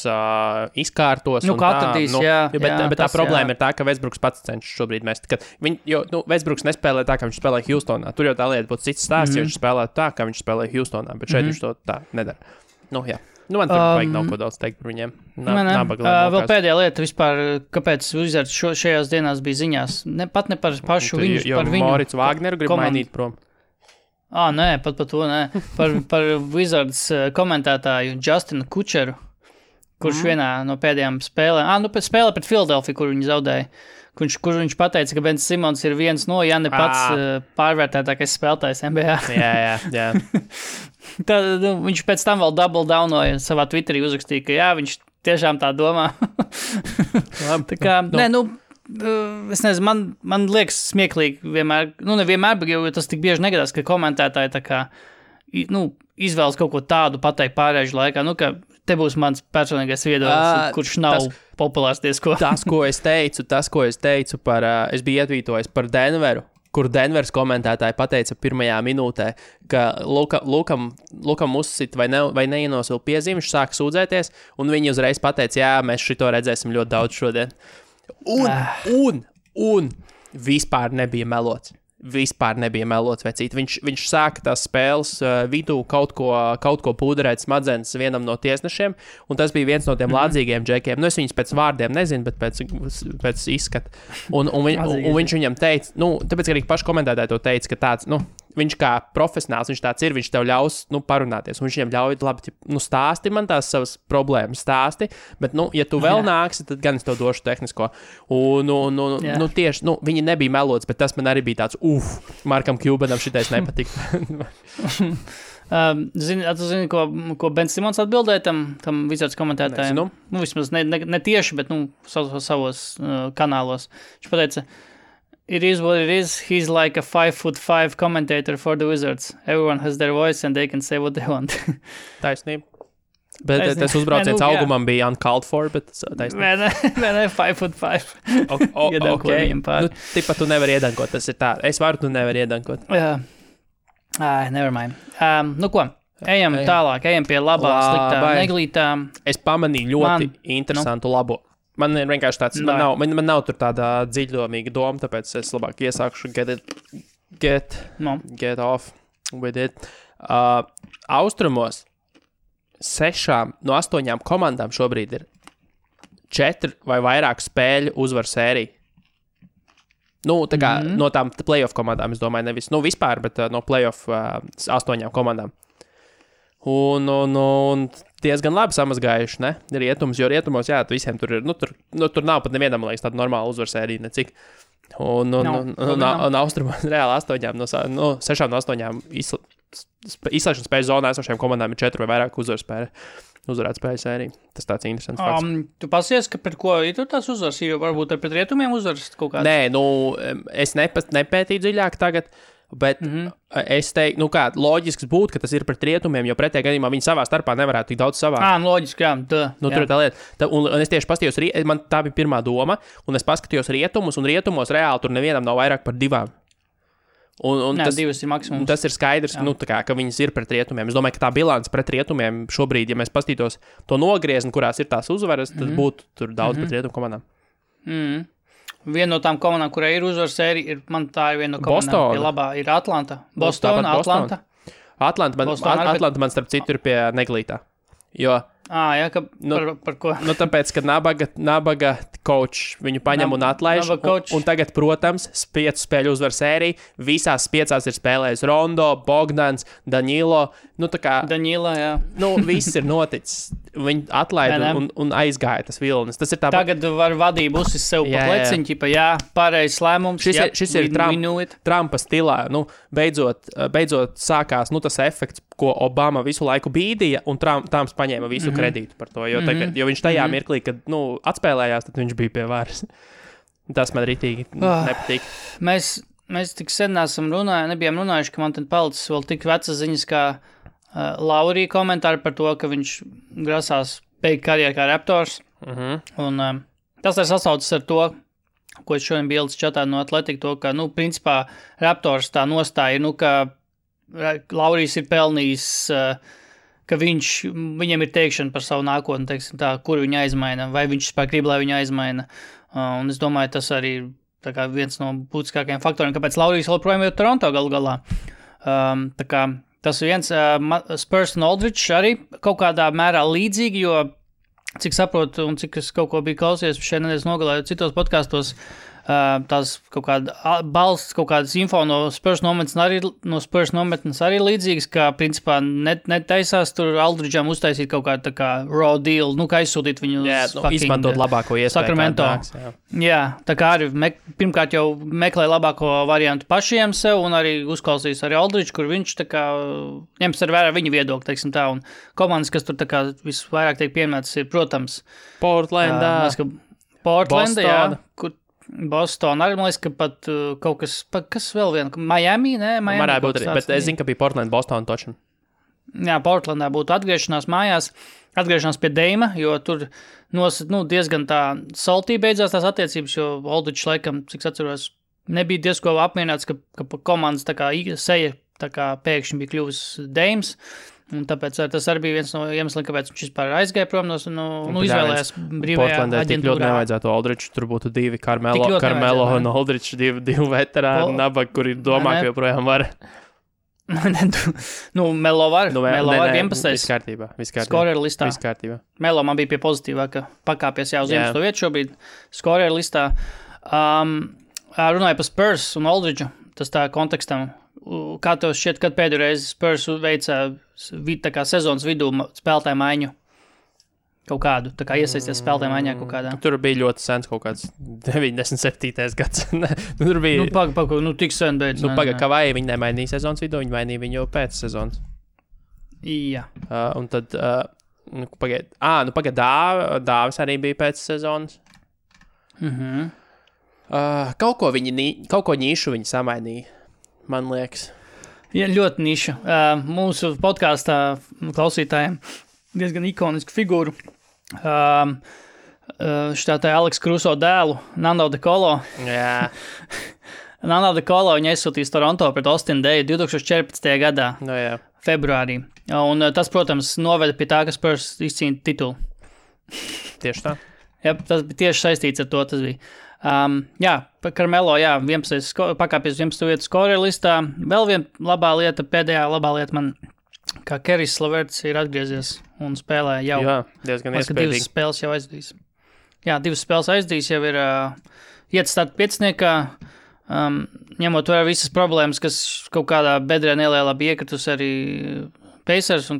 izkārtos. Atradīs, bet tā problēma ir tā, ka Westbrooks pats cenšas šobrīd mest. Westbrooks nespēlē tā, kā viņš spēlē Houstonā. Tur jau tā lieta būtu cits stāsts, ja viņš spēlē tā, kā viņš spēlē Houstonā, bet šeit viņš to tā nedara. Jā. Man tur vajag nav ko daudz teikt par viņiem. Vēl pēdējā lieta vispār, kāpēc Wizards šajās dienās bija ziņās. Pat ne par pašu viņu, par viņu. Morits Wagneru grib mainīt prom. Nē, pat par to nē. Par Wizards komentētāju Justinu Kučeru, kurš vienā no pēdējām spēlēm, spēlē pret Philadelphia, kur viņi zaudēja, kur viņš pateica, ka Ben Simons ir viens no, ja ne pats pārvērtētākais spēlētājs NBA. Jā. Tad viņš pēc tam vēl double downoja savā Twitterī uzrakstīja, ka jā, viņš tiešām tā domā. Tā kā, es nezinu, man liekas smieklīgi vienmēr, nevienmēr, bet jo tas tik bieži negadās, ka komentētāji tā kā, izvēlas kaut ko tādu pateikt pārēžu laikā, ka te būs mans personīgais viedoklis, kurš nav populārs diezko. Tas, ko es teicu par, es biju ietvītojis par Denveru, kur Denveras komentētāji pateica pirmajā minūtē, ka Lukam uzsit vai neienosila piezīmi, viņš sāka sūdzēties, un viņi uzreiz pateica, jā, mēs šito redzēsim ļoti daudz šodien. Un vispār nebija melots. Vecīt. Viņš sāka tās spēles vidū kaut ko pūderēt smadzenes vienam no tiesnešiem, un tas bija viens no tiem lādzīgiem džekiem. Es viņus pēc vārdiem nezinu, bet pēc izskata. Un viņš viņam teica, tāpēc, ka arī paši komentētāji to teica, ka tāds, viņš kā profesionāls, viņš tāds ir, viņš tev ļaus, parunāties, un viņš viņam ļauj, labi, stāsti man tās savas problēmas, bet, ja tu vēl nāksi, tad gan es tev došu tehnisko. Tieši, viņi nebija melots, bet tas man arī bija tāds, Markam Cubanam šitais nepatika. Zini, ko Ben Simons atbildēja tam Wizards komentētājiem? Vismaz ne tieši, bet, savos kanālos. Viņš pateica, it is what it is. He's like a 5'5" commentator for the Wizards. Everyone has their voice and they can say what they want. Taisnība. Bet tas uzbrauciens augumam bija uncalled for, bet taisnība. Nē, 5'5". Okay. Tipa tu nevari iedankot, tas ir tā. Es varu, tu nevari iedankot. Never mind. Ko? Ejam tālāk, ejam pie labām, sliktām, neglītām. Es pamanīju ļoti interesantu labo. Man ir vienkārši tāds, man nav tur tāda dziļdomīga doma, tāpēc es labāk iesākšu get off with it. Austrumos 6 no 8 komandām šobrīd ir 4 vai vairāk spēļu uzvaru sēriju. Nu, tā kā no tām playoff komandām, es domāju, nevis vispār, bet no playoff 8 komandām. Un diezgan labi samazgājuši, ne? Rietumus, jo rietumos, jā, visiem tur ir, tur nav pat nevienam, liekas, tāda normāla uzvarsērija, necik. Un austrumos reāli 6 no 8 izslēgšanas spēļu zonā esošajām komandām ir 4 vai vairāk uzvarēt spēļu sēriju. Tas tāds interesants fakts. Tu pasies, ka pret ko ir tās uzvaras, jo varbūt ar pret rietumiem uzvaras kaut kāds? Nē, es nepētīju dziļāk tagad, bet es teiktu, loģisks būtu, ka tas ir pret rietumiem, jo pretējā gadījumā viņi savā starpā nevarētu tik daudz savā. Loģiski, jā. Tur ir tā lieta. Un es tieši paskatījos, man tā bija pirmā doma, un es paskatījos rietumus, un rietumos reāli tur nevienam nav vairāk par 2. Un tas 2 ir maksimums. Tas ir skaidrs, ka viņas ir pret rietumiem. Es domāju, ka tā bilance pret rietumiem šobrīd, ja mēs paskatītos to nogriezni, kurās ir tās uzvaras, tad būtu tur daudz pret rietumu komandām. Viena no tām komandām, kurai ir uzvaras sērija, man tā ir viena no komandām, ir labā, ir Atlanta. Atlanta. Atlanta man starp citu ir pie Neglītā. Jo, jā, par ko? Tāpēc, ka nabaga coach viņu paņem un atlaiž. Un tagad, protams, 5 spēļu uzvar sēriju. Visās 5 ir spēlējis Rondo, Bogdans, Danilo. Danilo, jā. Viss ir noticis. Viņi atlaida un aizgāja tas vilnis. Tas ir tā. Tagad var vadību uzsist sev pa pleciņu, pareizs lēmums. Šis ir Trumpa stilā. Beidzot sākās tas efekts, ko Obama visu laiku bīdīja, un Trumps paņēma visu kredītu par to. Jo viņš tajā mirklī, kad atspēlējās, tad viņš bija pie varas. Tas man ritīgi nepatīk. Mēs tik sen nebijām runājuši, ka man tad palicis vēl tik vecas ziņas, kā Laurija komentāri par to, ka viņš grasās beigt karjeru kā Raptors. Un tas ir sasaucis ar to, ko es šodien biju ielicis čatā no Atletiku, to, ka, principā, Raptors tā nostāja, ka Laurijs ir pelnījis, ka viņam ir teikšana par savu nākotni, teiksim tā, kur viņa aizmaina, vai viņš vispār grib, lai viņa aizmaina. Un es domāju, tas arī tā kā viens no būtiskākajiem faktoriem, kāpēc Laurijs joprojām ir Toronto galu galā. Tā kā tas ir viens Spurs un Aldridge arī kaut kādā mērā līdzīgi, jo cik saprotu un cik es kaut ko biju klausies šeit nedēļas nogalē citos podkastos, tās kaut kāda balsts, kaut kādas info no Spurs nometnes arī līdzīgas, ka principā netaisās tur Aldridge'am uztaisīt kaut kādu tā kā raw deal, kā aizsūtīt viņu izmantot labāko iespēju. Sacramento. Jā, tā kā arī pirmkārt jau meklē labāko variantu pašiem sev un arī uzklausīs arī Aldridge, kur viņš tā kā ņems ar vērā viņa viedokli, teiksim tā, un komandas, kas tur tā kā visvairāk tiek pieminētas, ir, protams, Portlandā, jā, kur Boston arī, man liekas, ka pat kaut kas vēl vien, Miami, ne? Varētu būt arī, bet es zinu, ka bija Portland, Boston točan. Jā, Portlandā būtu atgriešanās mājās, atgriešanās pie Deima, jo tur diezgan tā saltī beidzās tās attiecības, jo Aldridge laikam, cik atceros, nebija diezko apmierināts, ka komandas tā kā seja tā kā pēkšņi bija kļuvis Deims. Un tāpēc tas arī bija viens no iemesliem, kāpēc viņš vispār aizgāja prom izvēlējās brīvajā Portlandē tik ļoti nevajadzētu Aldridge, tur būtu 2 Carmelo un Aldridge, 2 veterāni nabaga, kuri domā, ka joprojām var. Melo var, Melo var 11. Viss kārtībā. Skoreru listā. Viss kārtībā. Melo man bija pie pozitīvā, ka pakāpies jau uz 11. vietu šobrīd skoreru listā. Runāja par Spurs un Aldridge, tas tā kontekstam. Kā tev šķiet, kad pēdējo reizi Spurs veica tā kā sezonas vidū spēlētāju maiņu? Kaut kādu, tā kā iesaisties spēlētāju maiņā kaut kādā? Tur bija ļoti sens kaut kāds 97. gads. Tur bija... tik sen beidz. Kavai viņi nemainīja sezonas vidū, viņi mainīja viņu jau pēc sezonas. Jā. Un tad, pagaid, Dāvis arī bija pēc sezonas. Kaut ko nišu viņi samainīja. Man liekas. Jā, ļoti niša. Mūsu podkāstā klausītājiem diezgan ikoniska figūra. Šitā tā Aleks Kruso dēlu, Nando De Colo. Jā. Nando De Colo viņa aizsūtīs Toronto pret Austin Daye 2014. gadā. Jā. Februārī. Un tas, protams, noveda pie tā, ka Spurs izcīna titulu. Tieši tā. Jā, tas bija tieši saistīts ar to, tas bija. Carmelo, 11. pakāpies 11. vietu skoreru listā. Vēl viena pēdējā labā lieta man, kā Kerijs Laverts ir atgriezies un spēlē jau. Jā, diezgan iespējīgi. 2 spēles jau aizdīs. Jā, 2 spēles aizdīs, jau ir iet starta 5. ņemot vērā visas problēmas, kas kaut kādā bedrē nelielā bija iekritus arī Pacers, un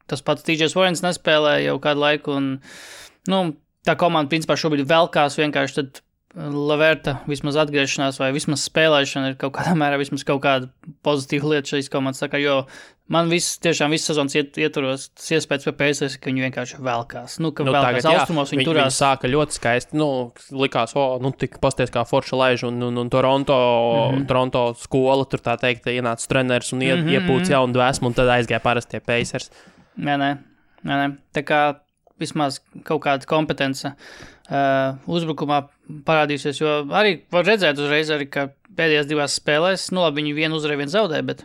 tas pats TJs Warrens nespēlē jau kādu laiku, un, tā komanda, principā, šobrīd velkās vienkārši tad Leverta vismaz atgriešanās vai vismaz spēlēšana ir kaut kādā mērā vismaz kaut kāda pozitīva lieta šīs komandas, tā kā, jo man tiešām viss sezonas ietvaros tas iespējas pie Pacers, ka viņi vienkārši velkās. Ka velkās tagad, austrumos, viņi turās. Viņi sāka ļoti skaisti, likās, tik pasties kā forša laiž, un Toronto skola, tur tā teikt, ienāca treneris un iepūc jaunu dvēsmu, un tad aizgāja parastie Pacers. Nē. Tā kā vismaz kaut kāda kompetence uzbrukumā parādīsies, jo arī var redzēt uzreiz arī, ka pēdējās 2 spēlēs, labi, viņi vienu uzvarēja, vienu zaudēja, bet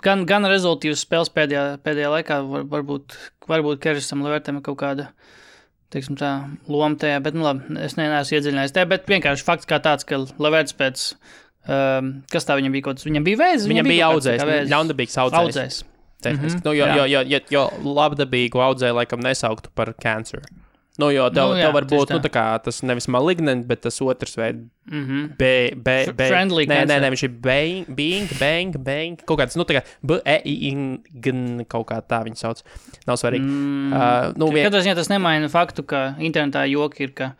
gan rezultīvas spēles pēdējā laikā varbūt Kerisam Levertam kaut kāda, teiksim tā, loma tajā, bet, labi, es neesmu iedziļinājies tajā, bet vienkārši fakts kā tāds, ka Leverts pēc, kas tā viņam bija kaut kas, viņam bija vēzis? Viņam bija audzējs, ļaundabīgs audzējs. Jo labdabīgu audzēju laikam nesauktu par cancer. Jo tev var būt, tā kā tas nevis malignant, bet tas otrs veid friendly cancer. Nē, viņš ir bang, kaut kāds, tā kā kaut kā tā viņi sauc. Nav svarīgi. Katrā ziņā tas nemaina faktu, ka internetā joki ir, ka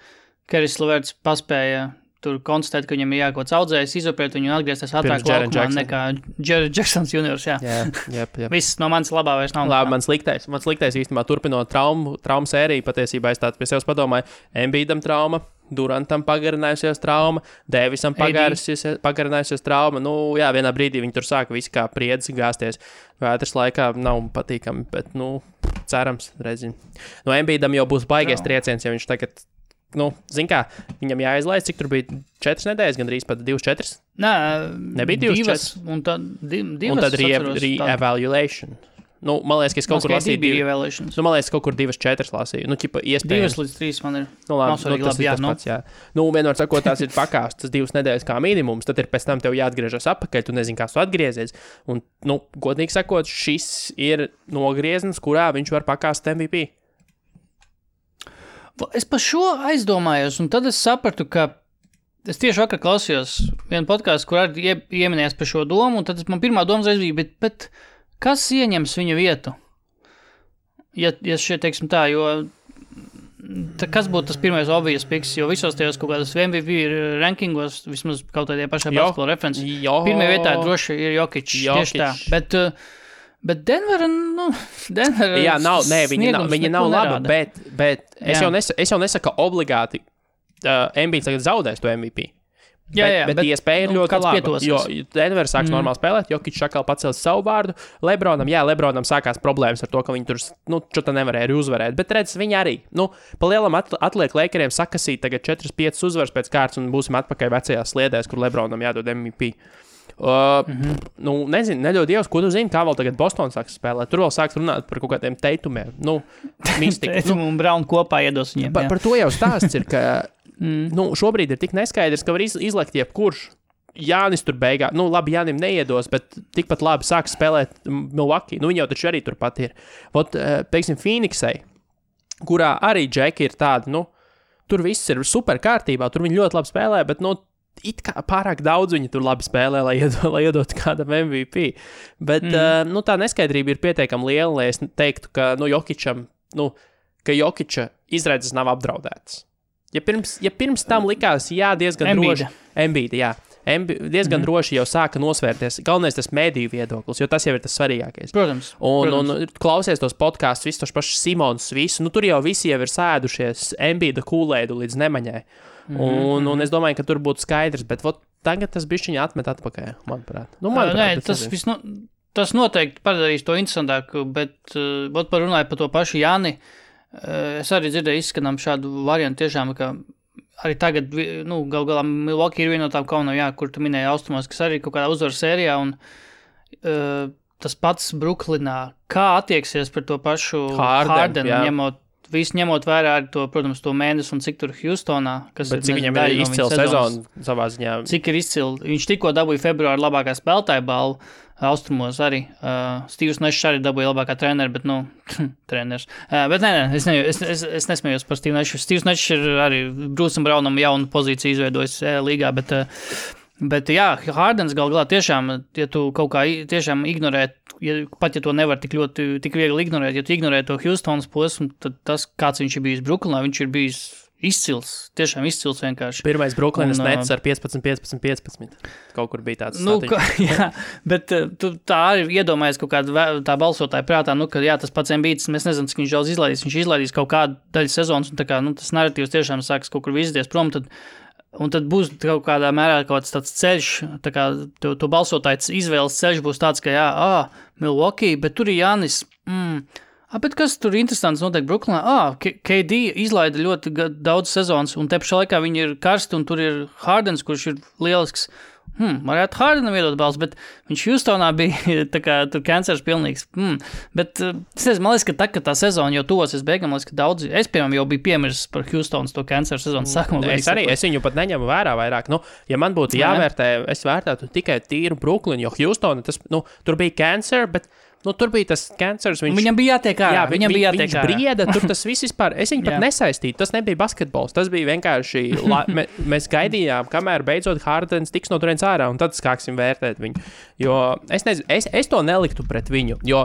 Keris Leverts paspēja tur konstatēt, ka viņam ir jākots audzējs, izoperēt viņu un atgriezties ātrāk laukumā nekā Jared Jacksons juniors, jā. Jā. Viss no manis labā vairs nav. Labi, mans liktais īstenībā turpinot traumu sēriju, patiesībā es tādu pie sevis padomāju, Embiidam trauma, Durantam pagarinājusies trauma, Davisam pagarinājusies trauma, vienā brīdī viņi tur sāka visi kā priedzi gāsties. Vētras laikā nav patīkami, bet, cerams, redzim. Embiidam jau būs baigies trieciens, ja viņš tagad zin kā, viņam jāizlaist, cik tur bija 4 nedēļas, gandrīz pat 2-4? Nē, nebija 2-4. Un tad re-evaluation. Man liekas, ka es kaut kur lasīju. Man liekas, kaut kur 2-4 lasīju. Iespējams. 2-3 man ir. Tas ir tas pats, jā. Vienmēr sakot, tās ir pakāstas 2 nedēļas kā minimums, tad ir pēc tam tev jāatgriežas atpakaļ, tu nezini, kā tu atgriezies. Un, godīgi sakot, šis ir nogrieznis, kurā viņš var pakāst MVP. Es par šo aizdomājos, un tad es sapratu, ka es tieši vakar klausījos vienu podcastu, kur arī ieminējās par šo domu, un tad man pirmā doma reiz bija, bet kas ieņems viņa vietu? Ja šeit, teiksim tā, jo kas būtu tas pirmais obvious picks, jo visos tajos kaut kādas MVP rankingos, vismaz kaut tādie pašā basketbola referenci, pirmajā vietā droši ir Jokic, tieši tā, bet Denver, jā, viņa nav laba, bet es jau nesaku obligāti, Embiids tagad zaudēs to MVP. Bet iespēja ir ļoti laba, jo Denver sāks normāli spēlēt, Jokic atkal pacels savu vārdu, Lebronam sākās problēmas ar to, ka viņi tur, čota nevarēja arī uzvarēt, bet redz, viņi arī, pa lielam atliek Lakeriem sakasīt tagad 4-5 uzvaras pēc kārtas un būsim atpakaļ vecajās sliedēs, kur Lebronam jādod MVP. Nezinu, neļauj Dievs, ko tu zini, kā vēl tagad Boston sāks spēlēt. Tur vēl sāks runāt par kaut kādiem teitumiem. Mistika. Teitumu un Brown kopā iedos viņiem. Par to jau stāsts ir, ka šobrīd ir tik neskaidrs, ka var izlekt jebkurš. Jānis tur beigā, labi, Jānim neiedos, bet tikpat labi sāks spēlēt Milwaukee. Viņi jau taču arī turpat ir. Teiksim, Phoenixai, kurā arī Džeki ir tādi, tur viss ir super kārtībā, tur viņi ļoti labi spēlē, bet, it kā pārāk daudz viņi tur labi spēlē, lai iedot kādam MVP. Bet, tā neskaidrība ir pietiekami liela, lai es teiktu, ka, ka Jokiča izredzes nav apdraudētas. Ja pirms tam likās, diezgan droši. Embiida, jā. Diezgan droši jau sāka nosvērties. Galvenais tas mēdīju viedoklis, jo tas jau ir tas svarīgākais. Protams. Un klausies tos podkastus, visus tos pašus Simons, visu, tur jau visi jau ir sēdušies Embiida kūlēdu līdz nemaņai. Un es domāju, ka tur būtu skaidrs, bet tagad tas bišķiņi atmet atpakaļ, manuprāt. Tas noteikti padarīs to interesantāku, bet parunāju par to pašu Jāni. Es arī dzirdēju izskanām šādu variantu tiešām, ka arī tagad, gal galā Milwaukee ir viena no tām komandām, kur tu minēji austrumos, kas arī kaut kādā uzvaru sērijā, un tas pats Bruklinā, kā attieksies par to pašu Hardenu, ņemot vērā arī to, protams, to mēnesi un cik tur Houstonā, kas bet cik viņam ir izcila sezona savā ziņā. Cik ir izcila. Viņš tikko dabūja februāra labākā spēlētāja balvu, Austrumos arī. Stīvs Nešs arī dabūja labākā treneri, bet, treneris. Bet nē, es nesmējos par Stīvu Nešu. Stīvs Nešs ir arī Bruce'am Brownam jaunu pozīciju izveidojis līgā, bet jā, Hardens galā tiešām, ja tu kaut kā tiešām ignorē, pat ja to nevar tik viegli ignorēt, ja tu ignorē to Houstonas posmu, tad tas, kāds viņš ir bijis Brooklynā, viņš ir bijis izcils, tiešām izcils vienkārši. Pirmais Brooklynas nets ar 15. Kaut kur bija tāds jā, bet tu tā arī iedomājies kaut kāda tā balsotāja prātā, ka jā, tas pats Embiids, mēs nezinām, cik viņš daudz izlaidīs. Viņš izlaidīs kaut kādu daļu sezonas, un tā kā, tas narratīvs tiešām sāks kaut kur vizties prom, un tad būs kaut kādā mērā kaut tāds ceļš, tā kā to balsotāju izvēles ceļš būs tāds, ka Milwaukee, bet tur ir Jānis, bet kas tur interesants notiek Brooklynā? KD izlaida ļoti daudz sezonas, un te pašā laikā viņi ir karsti, un tur ir Hardens, kurš ir lielisks. Varētu Hardenam iedot balsu, bet viņš Houstonā bija tā kā tur kancers pilnīgs. Bet es nezinu, man liekas, ka kad tā sezona jau tuvosies beigām, man liekas, ka daudzi, es piemēram jau biju piemirsis par Houstonas to kanceru sezonas sākumu. Es viņu pat neņemu vērā vairāk. Ja man būtu jāvērtē, es vērtētu tikai tīru Brooklynu, jo Houstona, tur bija cancer, bet tur bija tas kancers. Viņam bija jātiek ārā. Viņš brieda, tur tas viss vispār. Es viņu pat nesaistītu. Tas nebija basketbols. Tas bija vienkārši. Mēs gaidījām, kamēr beidzot Hardens tiks no turienes ārā, un tad sāksim vērtēt viņu. Jo es nezinu, es to neliktu pret viņu. Jo,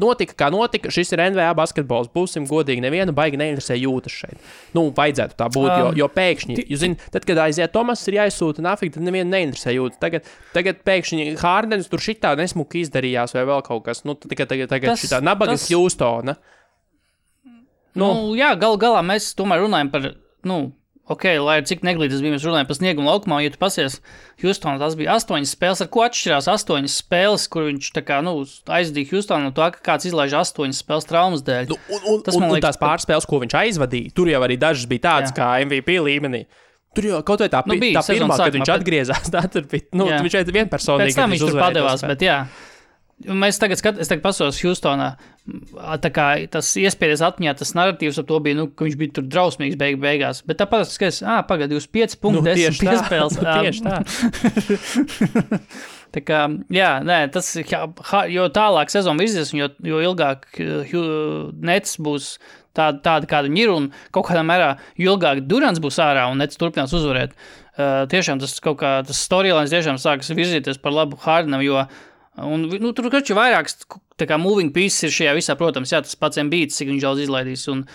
notika, kā notika. Šis ir NBA basketbols. Būsim godīgi, nevienu baigi neinteresē jūtas šeit. Vajadzētu tā būt, jo pēkšņi, jūs zināt, tad, kad aiziet Tomas, ir jāizsūta nafik, tad nevienu neinteresē jūtas. Tagad pēkšņi Hardens tur šitā nesmuki izdarījās vai vēl kaut kas. Tagad šitā nabaga Houstona. Jā, galā mēs tomēr runājam par, lai cik neglītas bija, mēs runājam par sniegumu laukumā, ja tu pasies Houstonā, tas bija 8 spēles, ar ko atšķirās 8 spēles, kur viņš tā kā, aizdīja Houstonu no to, ka kāds izlaiž 8 spēles traumas dēļ. Un tās pārspēles, ko viņš aizvadīja, tur jau arī dažas bija tādas kā MVP līmenī. Tur jau kaut vai tā pirmā, kad viņš atgriezās, tā tur bija, viņš šeit vienpersonīgi. Pēc tam viņš tur padevās, bet jā. Es tagad pasos Houstonā, tā kā tas iespējas atmiņā, tas narratīvs ap to bija, ka viņš bija tur drausmīgs beigās. Bet tāpat es skatos, pagad, jūs 5 punkti, 10 piespēles. Tieši tā. Tā kā, tas, jo tālāk sezona virzies, jo ilgāk Nets būs tāda, kāda viņi ir, un kaut kādā mērā, jo ilgāk Durants būs ārā un Nets turpinās uzvarēt. Tiešām tas kaut kā, tas storylines tiešām sākas virzīties par labu Hardenam, jo tur kaču vairākas tā kā moving pieces ir šajā visā, protams, tas pats Embiids, cik viņš daudz izlaidīs, un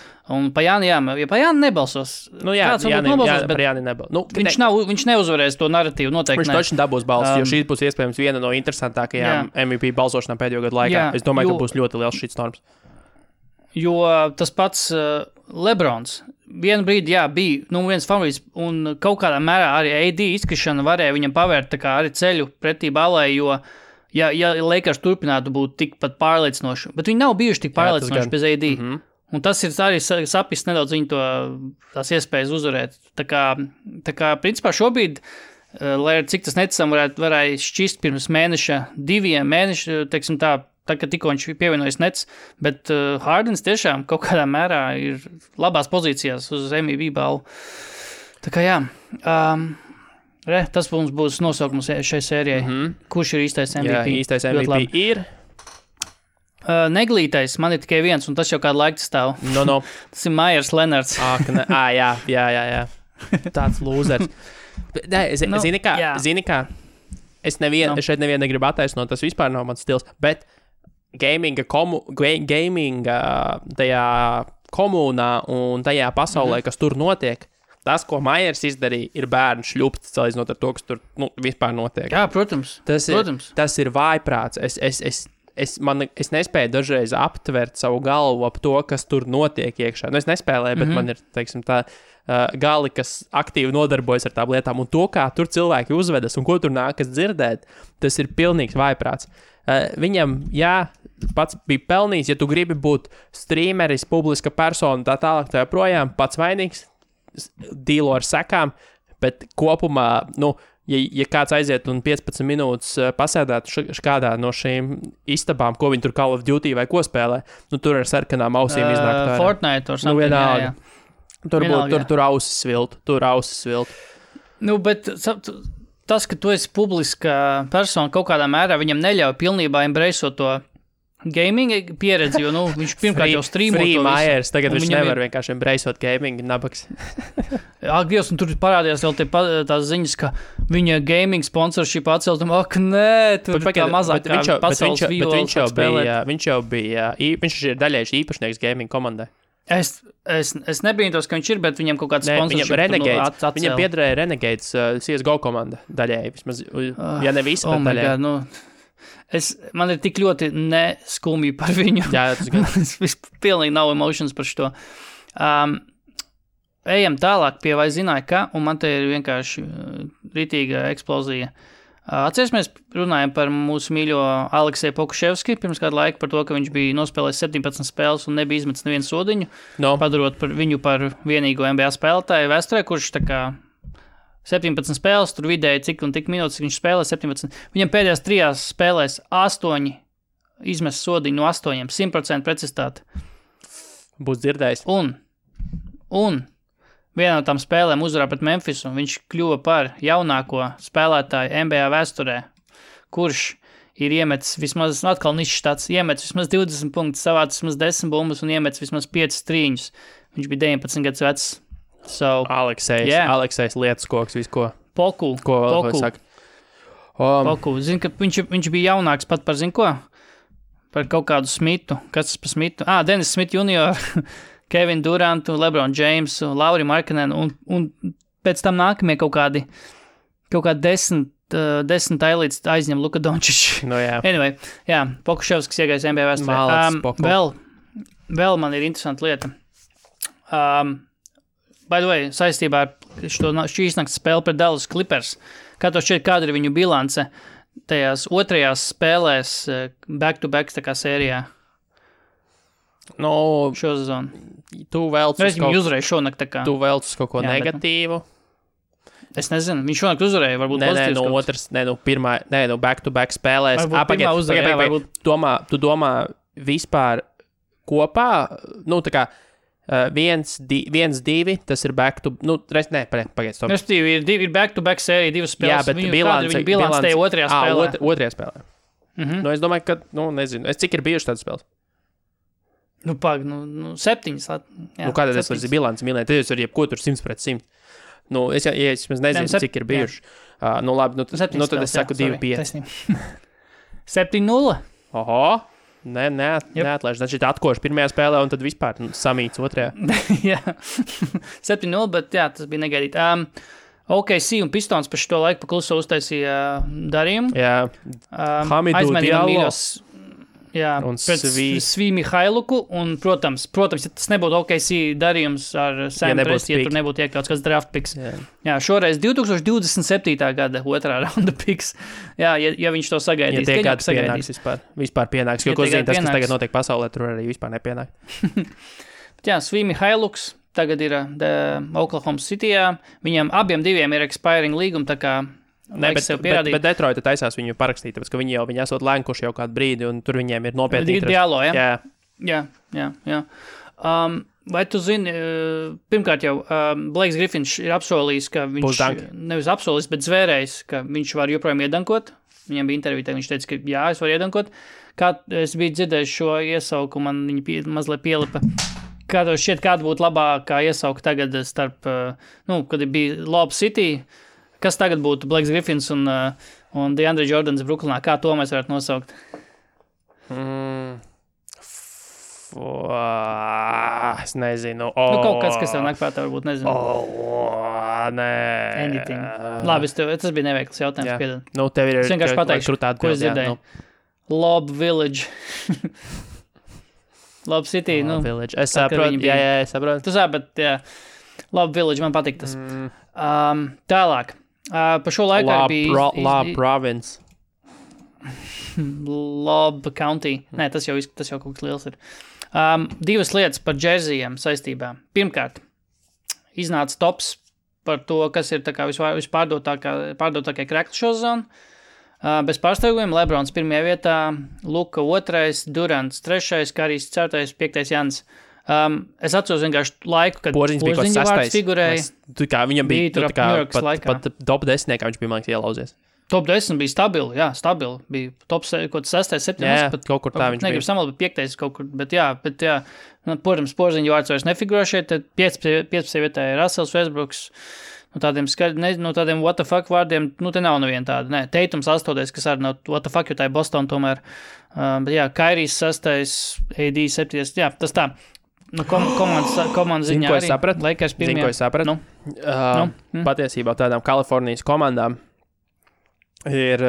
pa Jāni, ja pa Jāni nebalsos. Viņš neuzvarēs to narratīvu, noteikti viņš točni dabūs balsu, jo šī būs iespējams viena no interesantākajām MVP balsošanām pēdējo gadu laikā. Es domāju, ka būs ļoti liels šits norms. Jo tas pats Lebrons vienu brīdi, bija viens favorīts, un kaut kādā mērā arī AD izkrišana varēja viņam pavērt tā kā arī ceļu pretī balai, jo ja Lakers turpinātu būt tikpat pārliecinoši, bet viņi nav bijuši tik pārliecinoši bez AD. Un tas ir arī sapis nedaudz viņu tās iespējas uzvarēt. Tā kā principā šobrīd, lai cik tas neticam varēja šķist pirms mēneša, 2 mēneši, teiksim tā, kad tikko viņš pievienojas Nets, bet Hardens tiešām kaut kādā mērā ir labās pozīcijās uz MVP balvu. Tā kā tas mums būs nosaukums šai sērijai. Kurš ir īstais MVP? Jā, īstais MVP ir... Neglītais, man ir tikai viens, un tas jau kādu laiku stāv. Tas ir Myers Leonards. Jā. Tāds lūzers. Zini kā, es šeit nevienu negribu attaisnot, tas vispār nav mans stils, bet gaminga tajā komunā un tajā pasaulē, kas tur notiek, tas, ko Myers izdarīja, ir bērnu šļupts, salīdzinot ar to, kas tur vispār notiek. Jā, protams. Tas ir vājprāts. Es nespēju dažreiz aptvert savu galvu ap to, kas tur notiek iekšā. Es nespēlēju, bet man ir, teiksim, tā gali, kas aktīvi nodarbojas ar tām lietām. Un to, kā tur cilvēki uzvedas un ko tur nākas dzirdēt, tas ir pilnīgs vājprāts. Viņam, pats bija pelnījis, ja tu gribi būt streameris, publiska persona, tā tālāk, tā joprojām, pats vainīgs, dīlo ar sekām, bet kopumā, ja kāds aiziet un 15 minūtes pasēdētu kādā no šīm istabām, ko viņi tur Call of Duty vai ko spēlē, tur ar sarkanām ausīm iznāk. Fortnite or something, jā. Tur ausis sviltu. Bet tas, ka tu esi publiska persona kaut kādā mērā, viņam neļauj pilnībā embraceot to gaming pieredzi, jo, viņš pirmkārt jau streamo to visu. Free Myers, tagad viņš nevar vienkārši embraceot gaming, nabaks. Ak, Dievs, un tur parādījās vēl tās ziņas, ka viņa gaming sponsorship atcelt, nē, tur tā mazāk kā pasaules viņš jau bija, viņš ir daļējuši īpašnieks gaming komandai. Es nebrīnos, ka viņš ir, bet viņam kaut kāds sponsorship Renegades, viņam piederēja Renegades CSGO komanda daļēji, vismaz, ja ne visi, bet daļēji. Man ir tik ļoti neskumji par viņu. Jā, tas gan. Es pilnīgi nav emotions par šo. Ejam tālāk pie vai zināja, ka, un man te ir vienkārši ritīga eksplozija. Atcerēsimies, runājam par mūsu mīļo Alekseju Pokuševski pirms kādu laiku par to, ka viņš bija nospēlējis 17 spēles un nebija izmetis nevienu sodiņu, padarot viņu par vienīgo NBA spēlētāju vēsturē, kurš tā kā 17 spēles, tur vidēji cik un tik minūtes viņš spēlē 17. Viņam pēdējās 3 spēlēs 8 izmes sodiņu no 8, 100% precizitāte. Būs dzirdējis. Un vienā no tām spēlēm uzvarā pret Memphisu, viņš kļuva par jaunāko spēlētāju NBA vēsturē, kurš ir iemetis vismaz, atkal nišs tāds, iemetis vismaz 20 punktus, savācis vismaz 10 bumbas un iemetis vismaz 5 strīņus. Viņš bija 19 gadus vecs. So, Aleksejs lietas koks, visu ko. Poku. Ko vēl saka? Poku. Zinu, ka viņš bija jaunāks pat par, zinu ko? Par kaut kādu Smitu. Kas tas par Smitu? Dennis Smith junior, Kevin Durantu, LeBron Jamesu, Lauri Markkanenu un pēc tam nākamie kaut kādi 10 tailītes aizņem Luka Dončić. No, jā. Anyway, Pokuševskis iegājis NBA vēsturē. Vēl man ir interesanta lieta. By the way, saistībā ar šīs nakts spēli pret Dallas Clippers, kā to šķiet, kāda ir viņu bilance tajās otrajās spēlēs back-to-back tā kā sērijā? Šo sezonu. Tu vēlc uz kaut ko negatīvu. Es nezinu, viņš šonakt uzvarēja, varbūt pozitīvs. Back-to-back spēlēs. Pirmā uzvarēja, varbūt. Tu domā vispār kopā, tā kā 1-2, tas ir pagaidz. Respektīvi, ir back-to-back sērija, 2 spēles. Jā, bet bilance tajā otrajā spēlē. Otrajā spēlē. Es domāju, ka, nezinu, cik ir bijuši tādas spēles? 7. Kādā tas var bilants mīlēt? Tad jūs var jebko tur 100%. Es nezinu, cik ir bijuši. Labi, tad es saku 2-5. 7-0. Oho. Neatlaiž. Znači, atkoši pirmajā spēlē un tad vispār samīts otrajā. Jā. 7-0, bet tas bija negaidīt. OKC un Pistons par šo laiku pakluso uztaisīja darījumu. Jā. Hamidu Diallo. Jā, pret Svī Mihailuku, un, protams, ja tas nebūtu OKC darījums ar Sam Presti, ja tur nebūtu iekļauts kāds draft picks. Jā, šoreiz 2027. gada otrā raunda picks. Jā, ja viņš to sagaidīs. Ja tie kāds pienāks vispār pienāks, jo ko zina tas, kas tagad notiek pasaulē, tur arī vispār nepienāk. Jā, Svī Mihailuks tagad ir Oklahoma Cityjā. Viņam abiem diviem ir expiring līguma, tā kā bet Detroita taisās viņu parakstīt, tāpēc, ka viņi esot lēnkuši jau kādu brīdi, un tur viņiem ir nopietni interesi. Diallo, ja? Jā. Vai tu zini, pirmkārt jau, Blakes Griffins ir apsolījis, ka viņš, nevis apsolījis, bet zvērējis, ka viņš var joprojām iedankot. Viņam bija intervija, viņš teica, ka jā, es varu iedankot. Kā es biju dzirdējis šo iesauku, man viņi mazliet pielipa. Kā tev šķiet, kāda būtu labākā iesauka tagad starp, kad bija Lob City, kas tagad būtu Blakes Griffins un DeAndre Jordans Brooklynā? Kā to mēs varētu nosaukt? Es nezinu. Kaut kas tev nāk prātā, varbūt nezinu. Nē. Anything. Labi, tas bija neveikls jautājums. Piedod. Tev ir es vienkārši pateikšu, ko es dzirdēju. Lob Village. Lob City. Village. Es saprotu. Jā, es saprotu. Tu sabi, bet jā. Lob Village, man patīk tas. Tālāk. Pa šo laiku bija Lob Province. Lob County. Nē, tas jau kaut kas liels ir. 2 lietas par džersijiem saistībā. Pirmkārt, iznāca tops par to, kas ir tā kā vispārdodākie krekli šo zonu. Bez pārsteigumiem Lebrons 1. vietā, Luka 2, Durants 3, Karijs 4, 5. Jans. Es atceros vienkārši laiku, kad Porziņš bija Porziņa vārds sastais. figurēja. Viņam bija Bija tur ap Ņujorkas laikā. pat top 10, kā viņš bija, man liekas, ielauzies. Top 10 bija stabili. Bija top 6, 7. Jā, kaut kur tā viņš negribu bija. samalot, bet 5. kaut kur. Bet jā. Nu, protams, Porziņa vārds vairs nefigurē šeit. Tad 15. vietā ir Russells Westbrooks. No tādiem what the fuck vārdiem, te nav neviena tāda. Nē, Teitums 8. kas arī nav what the fuck, jo tā ir Boston tomēr. Bet jā, Kairijs 6. AD 7. Jā, tas tā. Nu, komandas ziņā ko arī. es sapratu? Lakers Zini, ko es sapratu? Patiesībā tādām Kalifornijas komandām ir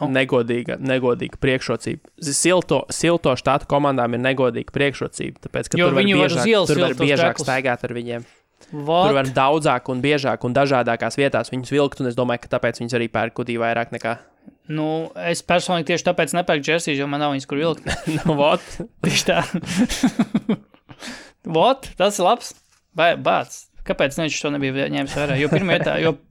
negodīga priekšrocība. Silto štātu komandām ir negodīga priekšrocība, tāpēc, ka Jo tur var viņi var uz ielas tur var vilkt tos biežāk treklus. staigāt ar viņiem. What? Tur var daudzāk un biežāk un dažādākās vietās viņus vilkt, un es domāju, ka tāpēc viņus arī pērk kudī vairāk nekā. Nu, es personīgi tieši tāpēc nepērku džersijas, jo man nav viņas, kur vilkt. Nu, vot. Tieši tā. Vot, tas ir labs. Bāc. Kāpēc viņš to nebija ņēmis vērā? Jo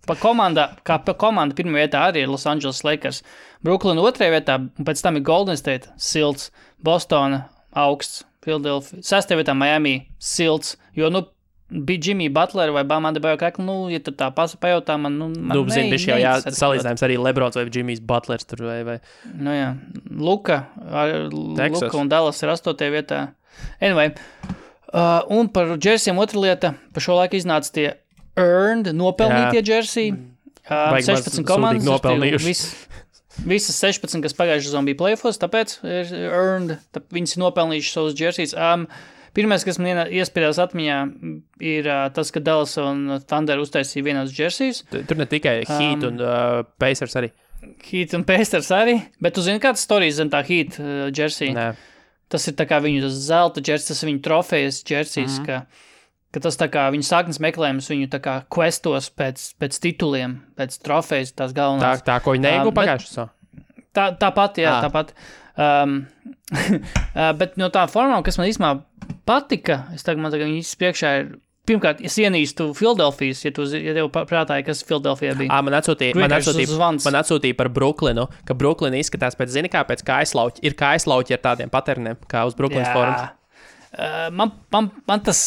pa komanda pirmā vietā arī ir Los Angeles Lakers. Brooklyn 2. vietā, un pēc tam ir Golden State, silts, Bostona, augsts, Philadelphia, 6. vietā Miami, silts, jo, bija Jimmy Butler vai Bamanda Bajokakli, ja tu tā pajautā, man zini, bišķi jau salīdzinājums arī Lebrons vai Jimmys Butlers tur vai. Nu jā, Luka un Dallas ir 8. vietā. Anyway, un par džersijiem otra lieta, par šo laiku iznāca tie earned, nopelnītie džersiji. 16 komandas. Visas 16, kas pagājušajā sezonā bija playoffs, tāpēc ir earned, viņas ir nopelnījuši savus džersijus. Pirmais, kas man iespiedās atmiņā, ir tas, ka Dallas un Thunder uztaisīja vienos džersijus. Tur ne tikai Heat un Pacers arī. Heat un Pacers arī, bet tu zini, kāds storijas zem tā Heat džersija? Nē. Tas ir tā kā viņu zelta džersijas, tas ir viņu trofejas džersijas, ka tas tā kā viņu sāknes meklējums, viņu tā kā questos pēc tituliem, pēc trofejas, tās galvenās. Tā ko viņi neieguva pagājušajā. Tāpat, jā, tāpat. Bet no tā formām, kas man īstenībā patika, man tagad viņas priekšā ir, pirmkārt, es ienīstu Philadelphijas, ja tev prātāja, kas Philadelphijā bija. Man atsūtīja par Brooklynu, ka Brooklyn izskatās pēc, zini kā, pēc kājaslauķi. Ir kājaslauķi ar tādiem paterniem, kā uz Brooklynas forums. Man tas,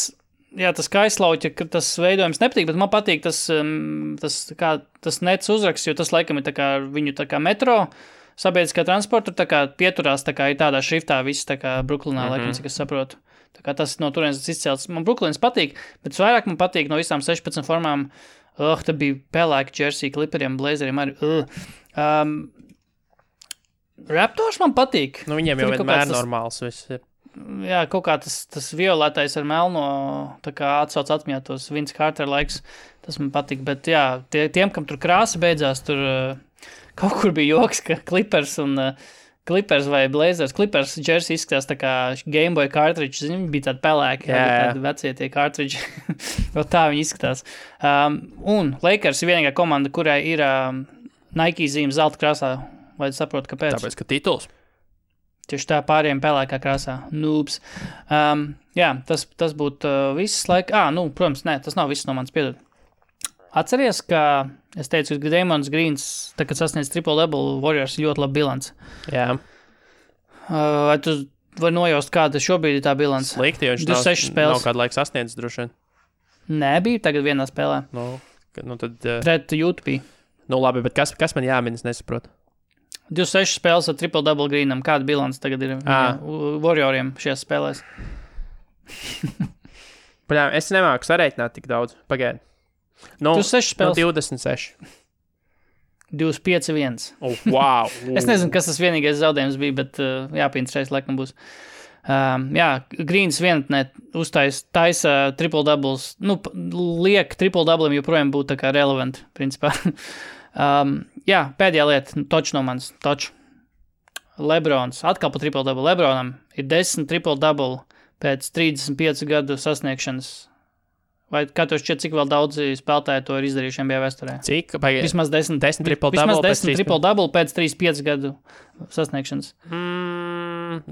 jā, tas kājaslauķi, ka tas veidojums nepatīk, bet man patīk tas nets uzraksts, jo tas laikam ir tā kā viņu tā kā metro, sabiedriskā transporta, tā kā pieturās, tā kā ir tādā šriftā viss, tā kā Brooklynā, laikam, cik es saprotu. Tā kā tas no turienes izcēlts. Man Brooklyns patīk, bet vairāk man patīk no visām 16 formām. Te bija pelēki džersija, kliperiem, blazeriem arī. Raptors man patīk. Nu, viņiem jau vienmēr normāls viss ir. Jā, kaut kā tas violetais ar melno, tā kā atsauc atmiņā tos Vince Carter laiks, tas man patīk. Bet jā, tiem, kam tur krāsa beidzās, tur kaut kur bija joks, ka Clippers vai Blazers. Clippers jersey izskatās tā kā Game Boy cartridge, zini, bija tādi pelēki, tādi vecie tie cartridge. Tā viņi izskatās. Un Lakers ir vienīgā komanda, kurai ir Nike zīme zelta krāsā. Vai saprot, kāpēc? Tāpēc, ka tituls. Tieši tā pāriem pelēkā krāsā. Noobs. Jā, tas būtu viss laika. Protams, nē, tas nav viss no manis, piedod. Atceries, ka es teicu, ka Damons Greens, tā, kad sasniedz triple-double, Warriors ļoti labi bilants. Jā. Vai tu vari nojaust, kāda šobrīd ir tā bilants? Slikti, jo viņš nav kādu laiku sasniedzis droši vien. Nē, bija tagad vienā spēlē. Tad... Pret Utah. Labi, bet kas man jāmin, es nesaprotu? 26 spēles ar triple-double Greenam. Kāda bilants tagad ir Warrioriem šajās spēlēs? Es nemāku sareiķināt tik daudz. Pagaidi. 26 spēles. 26. 25-1. Wow. Es nezinu, kas tas vienīgais zaudējums bija, bet jāpieņemts laikam būs. Jā, Greens vienatnē taisa triple-doubles. Liek triple-doublim joprojām būtu tā kā relevant, principā. Jā, pēdējā lieta, toč no manis, toč. Lebrons, atkal pa triple-double. Lebronam ir 10 triple-double pēc 35 gadu sasniegšanas. Vai kā tu šķiet, cik vēl daudzi spēlētāji to ir izdarījuši NBA vēsturē? Cik? Vismaz 10 triple-double pēc 35 gadu sasniegšanas.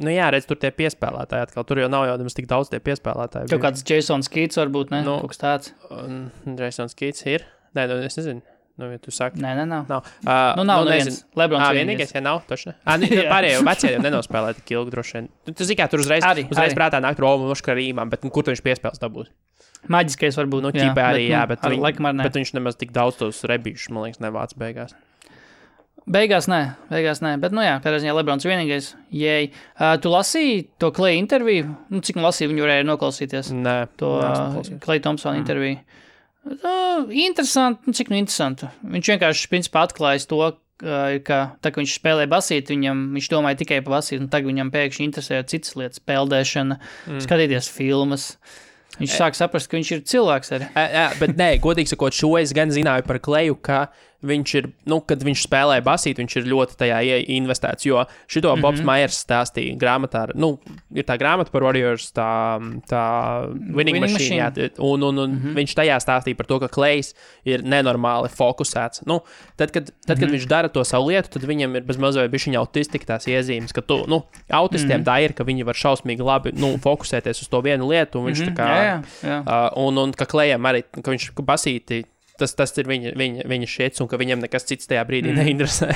Jā, redz, tur tie piespēlētāji atkal. Tur jau nav jau tik daudz tie piespēlētāji. Kaut kāds Jasons Keats varbūt, ne? Kaut kas tāds. Jasons Keats ir? Nē, es nezinu. Nu, ja tu saki. Nē, nav. Nav. Nav neviens. Lebrons vienīgais, ja nav, taču ne. Nu, pārējie vecie jau nenospēlē tik ilgi droši vien. Tu zini, kā tur uzreiz prātā nāk Romu Moškarīmām, bet kur tu viņš piespēles dabūt? Maģiskais varbūt. Nu, ķipē arī, bet viņš nemaz tik daudz tos rebīšus, man liekas, nevāc beigās. Beigās nē, bet, kādā ziņā Lebrons vienīgais. Jēj. Tu lasīji to Klay interviju? Nu, cik lasīju, viņu varēja noklausīties? Nē. To Klay Thompson interviju. Interesanti, cik interesanti. Viņš vienkārši, principā, atklājas to, ka tā, ka viņš spēlē basīt, viņš domāja tikai par basīt, un tagad viņam pēkšņi interesē citas lietas, peldēšana, skatīties filmas. Viņš sāk saprast, ka viņš ir cilvēks arī. Bet nē, godīgi sakot, šo es gan zināju par Kleju, ka viņš ir, kad viņš spēlē basīt, viņš ir ļoti tajā investēts, jo šito Bobs Myers stāstīja grāmatā, ir tā grāmata par Warriors, tā Winning Machine, jā, un viņš tajā stāstīja par to, ka Klejs ir nenormāli fokusēts. Tad, kad viņš dara to savu lietu, tad viņam ir bezmazliet bišķiņa autistika tās iezīmes, ka autistiem tā ir, ka viņi var šausmīgi labi, fokusēties uz to vienu lietu, un viņš tā kā, un ka Klejam arī, ka viņš basīti, tas ir viņa šiets, un ka viņam nekas cits tajā brīdī neinteresē.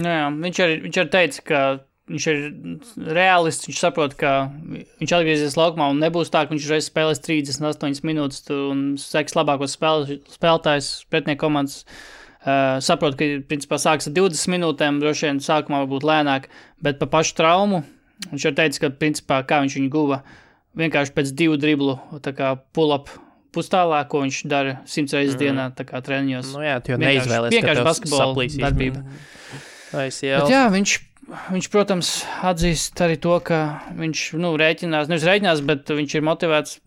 Jā, viņš arī teica, ka viņš ir realists, viņš saprot, ka viņš atgriezies laukumā un nebūs tā, ka viņš reiz spēlēs 38 minūtes un seks labākos spēlētājs pretnieku komandas. Saprot, ka principā sāks ar 20 minūtēm, droši vien sākumā varbūt lēnāk, bet pa pašu traumu viņš arī teica, ka principā kā viņš viņu guva vienkārši pēc 2 driblu, tā kā pull-up pustālā, ko viņš dara 100 reizes dienā, tā kā treniņos. Nu jā, tu jau neizvēlies, ka tev basketbola darbība. Bet jā, viņš, protams, atzīst arī to, ka viņš, rēķinās, bet viņš ir motivēts,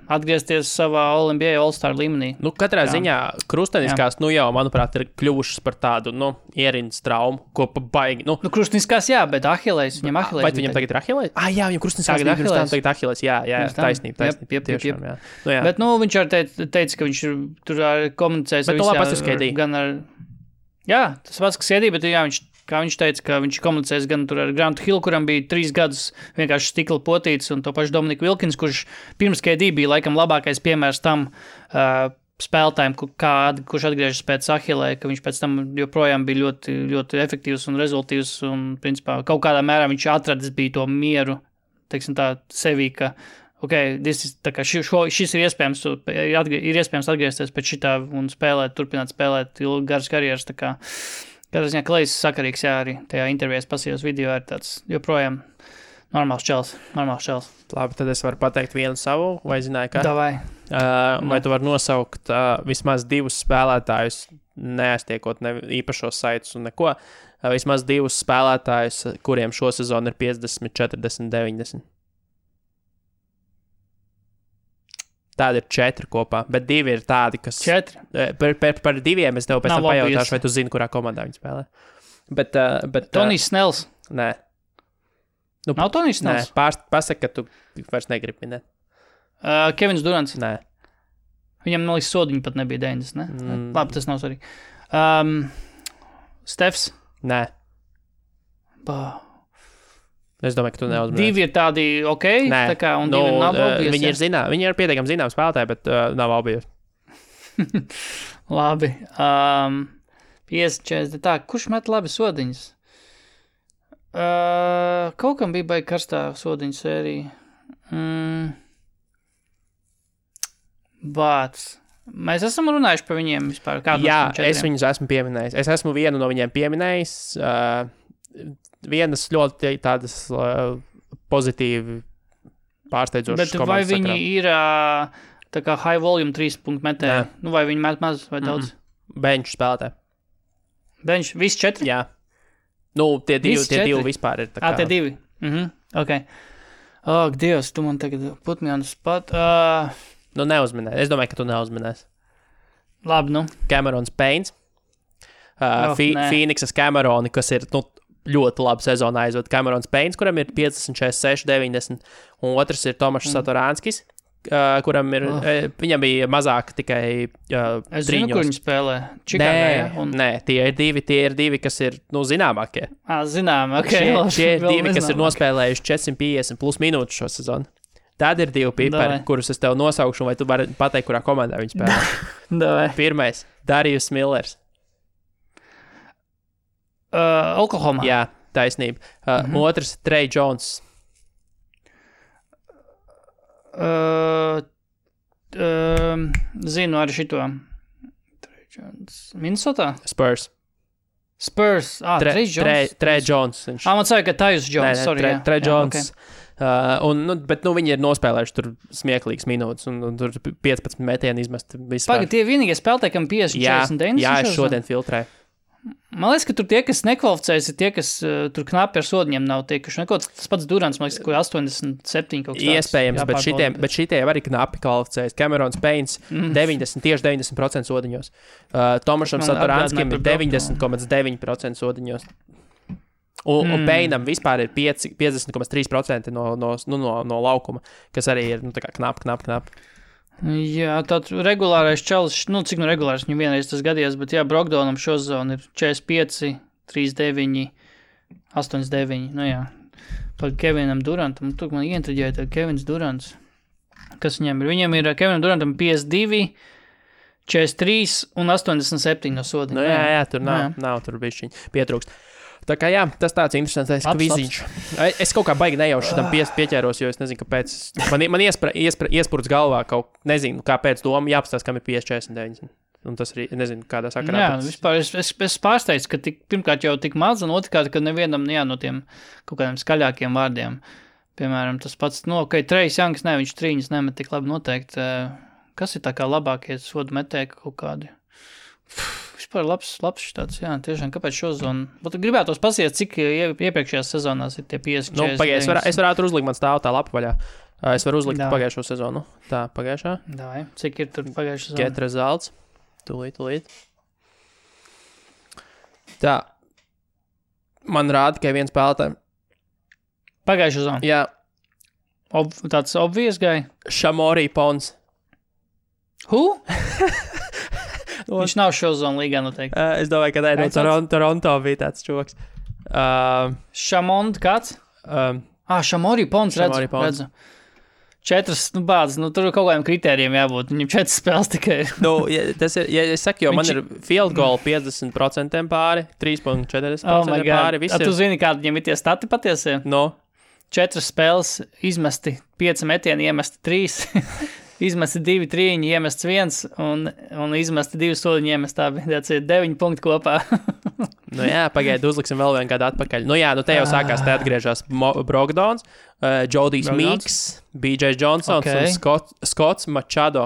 atgriezties savā All-NBA All-Star līmenī. Katrā ziņā krusteniskās, jau, manuprāt, ir kļuvušas par tādu, ierindas traumu, ko baigi, krusteniskās, jā, bet Ahilejs, viņam Ahilejs. Vai viņam tagad ir Ahilejs? Jā, viņam krusteniskās tagad Ahilejs, jā, taisnība. Tiešām, jā. Bet, viņš arī teica, ka viņš tur komunicēs ar visām, gan ar, jā, tas pats, kas iedī, bet jā, kā viņš teica, ka viņš komunicēs gan tur ar Grantu Hillu, kuram bija 3 gadus vienkārši stikla potīts, un to pašu Dominiku Wilkins, kurš pirms KD bija laikam labākais piemērs tam spēlētājiem, kurš atgriežas pēc Ahilē, ka viņš pēc tam joprojām bija ļoti, ļoti efektīvs un rezultīvs, un principā kaut kādā mērā viņš atradis bija to mieru, teiksim tā, sevī, ka šis ir iespējams atgriezties pēc šitā un turpināt spēlēt garas karjeras, tā kā Kādā ziņā Klejs sakarīgs, jā, arī tajā intervijās pasījos video ir tāds joprojām normāls čels. Labi, tad es varu pateikt vienu savu, vai zināju, ka? Davai. Vai tu vari nosaukt vismaz 2 spēlētājus, neaiztiekot īpašos saitus un neko, vismaz 2 spēlētājus, kuriem šo sezonu ir 50, 40, 90? Tādi ir 4 kopā, bet 2 ir tādi, kas... 4? Par 2 es tev pēc tam pajautāšu, vai tu zini, kurā komandā viņi spēlē. Bet Tonijs Snells? Nē. Nav Tonijs Snells? Nē, pasaka, ka tu vairs negribi minēt. Kevins Durants? Nē. Viņam, man liekas, sodiņi pat nebija 90, ne? Labi, tas nav svarīgi. Stefs? Nē. Es domāju, ka tu neuzmanīsi. 2 ir tādi Nē, tā kā, un 2 nav obvious. Viņi ir pietiekami zināmi spēlētāji, bet nav obvious. Labi. 50-40, tā, kurš met labi sodiņas? Kaut kam bija baigi karstā sodiņu sērija. Bāc. Mēs esam runājuši par viņiem vispār. Jā, es viņus esmu pieminējis. Es esmu vienu no viņiem pieminējis. Vienas ļoti tādas pozitīvi pārsteidzošas komandas. Bet vai viņi ir tā kā high volume 3-punktu metēji? Vai viņi met maz vai daudz? Bench spēlētāji. Bench? Visi 4? Jā. Tie divi vispār ir tā kā. Tie 2? Ok. Dievs, tu man tagad put me on the spot. Neuzminē. Es domāju, ka tu neuzminēsi. Labi, Camerons Paynes. Phoenixas Cameroni, kas ir, ļoti labu sezonu aizved. Camerons Paynes, kuram ir 50, 46, 90, un otrs ir Tomašs Satoranskis, kuram ir, viņam bija mazāk tikai es zinu, kur viņi spēlē. Čikāgā, Nē, tie ir divi, kas ir, zināmākie. Zināmā, ok. Šie ir divi, kas ir nospēlējuši 450 plus minūtes šo sezonu. Tad ir 2 pipari, Davai. kurus es tev nosaukšu, vai tu vari pateikt, kurā komandā viņi spēlē. Davai. Pirmais - Darius Millers. Oklahoma. Jā, taisnība. Otrs - Trey Jones. Zinu arī šito. Minnesota? Spurs. Spurs. Trey Jones. Trey Jones. Man saka, ka Tyus Jones. Trey Jones. Bet viņi ir nospēlējuši tur smieklīgas minūtes, un tur 15 metieni izmest. Pagaid, tie vienīgie spēlētāji, kam 50-49. Jā, es šodien filtrēju. Man liekas, ka tur tie, kas nekvalificējas, ir tie, kas tur knapi ar sodiņiem nav tiekuši. Tas pats Durants, man liekas, ka 87 kaut kas tāds. Iespējams, bet šitie arī knapi kvalificējas. Camerons Paynes 90% sodiņos. Tomašam Satoranskим ir 90,9% sodiņos. Un Payneam vispār ir 50,3% no laukuma, kas arī ir knap. Jā, tāds regulārais čalis, cik regulārs viņam vienreiz tas gadījās, bet jā, Brogdonam šo zonu ir 45, 39, 89, jā. Par Kevinam Durantam, tur man ieintriģēja tā Kevins Durants. Kas viņam ir? Viņam ir Kevinam Durantam 52, 43 un 87 no sodiņa. Jā, tur nav tur bišķiņ pietrūkst. Tā kā jā, tas tāds interesants kviziņš. Es kaut kā baigi nejauši tam pieķēros, jo es nezinu, kāpēc. Man iespurts galvā kaut, nezinu, kāpēc doma jāpastās, kam ir 50-49. Un tas arī, nezinu, kādā sakarā. Jā, vispār es pārsteidzu, ka pirmkārt jau tik maz, un otrkārt, ka nevienam, no tiem kaut kādiem skaļākiem vārdiem. Piemēram, tas pats, Trejs Janks, viņš trīņas nemet tik labi noteikti. Kas ir tā kā labākie sodu metēji kaut kādi? Vispār labs tāds, jā, tiešām, kāpēc šo zonu? Bet gribētos pasies, cik iepriekšējās sezonās ir tie 50. Es varētu uzlikt, man stāv tā lapa vaļā. Es varu uzlikt pagājušo sezonu. Tā, pagājušā. Dāj, cik ir tur pagājušā sezona? Get results. Tūlīt. Tā. Man rāda, ka viens spēlētāji. Pagājušā sezona? Jā. Tāds obvious guy? Shamori Pons. Who? Viņš nav šo zonu līgā noteikti. Es domāju, ka no Toronto bija tāds čoks. Shamond kāds? Shamori Pons, redzu. 4 bāzes, tur ir kaut kādiem kritērijiem jābūt. Viņam 4 spēles tikai ir. Tas ir, ja es saku, jo man ir field goal 50% pāri, 3,40% pāri. Tu zini, kādi viņam ir tie stati patiesie? 4 spēles izmesti, 5 metieni iemesti 3. Izmesti 2 trīņi, iemests 1, un izmesti 2 soliņi, iemest tā bija 9 punkti kopā. Pagaidi, uzliksim vēl vienu kādu atpakaļ. Te jau sākās, te atgriežās Brogdons, Jodijs Meeks, BJ Johnsons un Scotts Machado.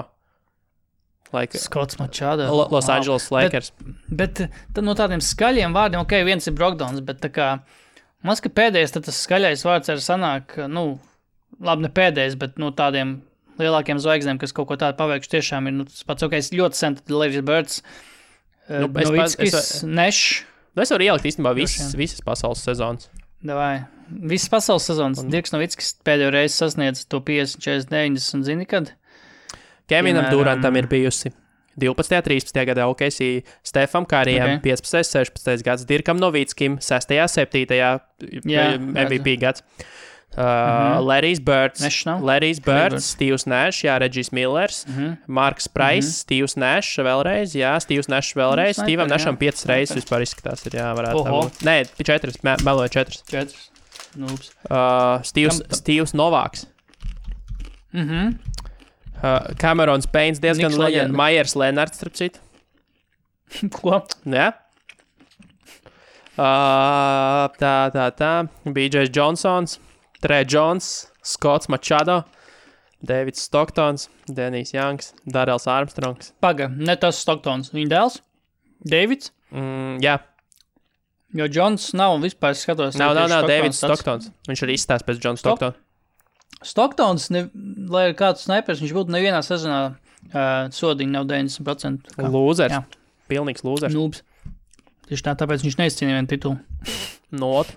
Scotts Machado. Los Angeles Lakers. Bet no tādiem skaļiem vārdiem, viens ir Brogdons, bet tā kā, man ka pēdējais, tad tas skaļais vārds arī sanāk, labi ne pēdējais, bet tādiem lielākiem zvaigznēm, kas kaut ko tādu paveikšu, tiešām ir tas pats, ļoti sen, tad Larry Birds, Novickis, Nešs. Es varu ielikt īstenībā visas pasaules sezonas. Davai. Visas pasaules sezonas. Dirks Novickis pēdējo reizi sasniedz to 50, 40, 90, zini kad? Kevinam Durantam ir bijusi 12. 13. gadā OKC, Stefam Karijam 15. 16. gads, Dirkam Novickim 6. 7. MVP gads. Larry's Birds, Steve's Nash, Regis Millers, Marks Price, Steve's Nash vēlreiz, Steve's Nash vēlreiz, Steve'am Nasham 5 reizes vispār izskatās, varētu tā būt. Nē, 4, meloju 4. Steve's Novaks. Camerons Paynes diezgan leģenda, Myers Lenards, starp citu. Ko? Jā. Tā, BJ Johnsons. Trey Jones, Scotts Machado, Davids Stocktons, Denijs Janks, Darrells Armstrongs. Paga, ne tas Stocktons. Viņa dēls? Davids? Jā. Jo Jones nav vispār skatos. Nav, Davids Stocktons. Viņš arī izstās pēc John Stockton. Stoktons, lai ir kāds snipers, viņš būtu nevienā sezonā sodiņa nav 90%. Lūzers. Pilnīgs lūzers. Nūbs. Tieši tāpēc viņš neizcīnīja vienu titulu. Not.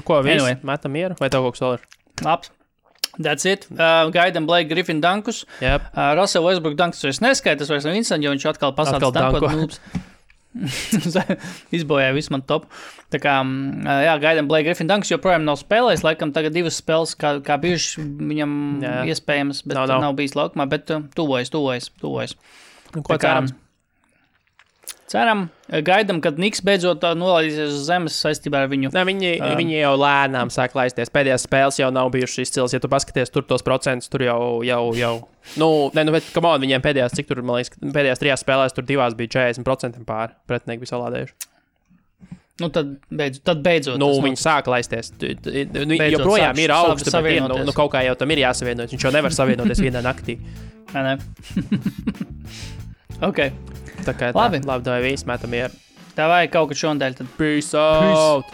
Ko, anyway. Metam mieru? Vai tev kaut kas vēl ir? Labs. That's it. Gaidam Blake Griffin dankus. Yep. Russell Westbrook dankus vairs neskaita, tas vairs nav interesanti, jo viņš atkal pasāca dankot nūbs. Izbojāja visu man top. Tā kā, jā, gaidām Blake Griffin Dunks, joprojām nav spēlējis, laikam tagad 2 spēles, kā bijuši viņam iespējams, bet nav bijis laukumā, bet tuvojas. Ko cerams? Ceram, gaidām, kad Niks beidzot nolaidīsies uz zemes saistībā ar viņu. Ne, viņi jau lēnām sāk laisties. Pēdējās spēles jau nav bijušas izcils. Ja tu paskaties tur tos procentus, tur jau. Bet, come on, viņiem pēdējās, cik tur, man liekas, pēdējās 3 spēlēs, tur 2 bija 40% pāri. Pretinieki bija salādējuši. Tad beidzot. Viņi sāk laisties. Joprojām ir augsts, bet kaut kā jau tam ir jāsavienojas. Viņš jau nevar savienoties vienā naktī. Ne. Ok. Tā kā labi, vai viss metam ir. Tā vajag kaut kad šodien. Peace out!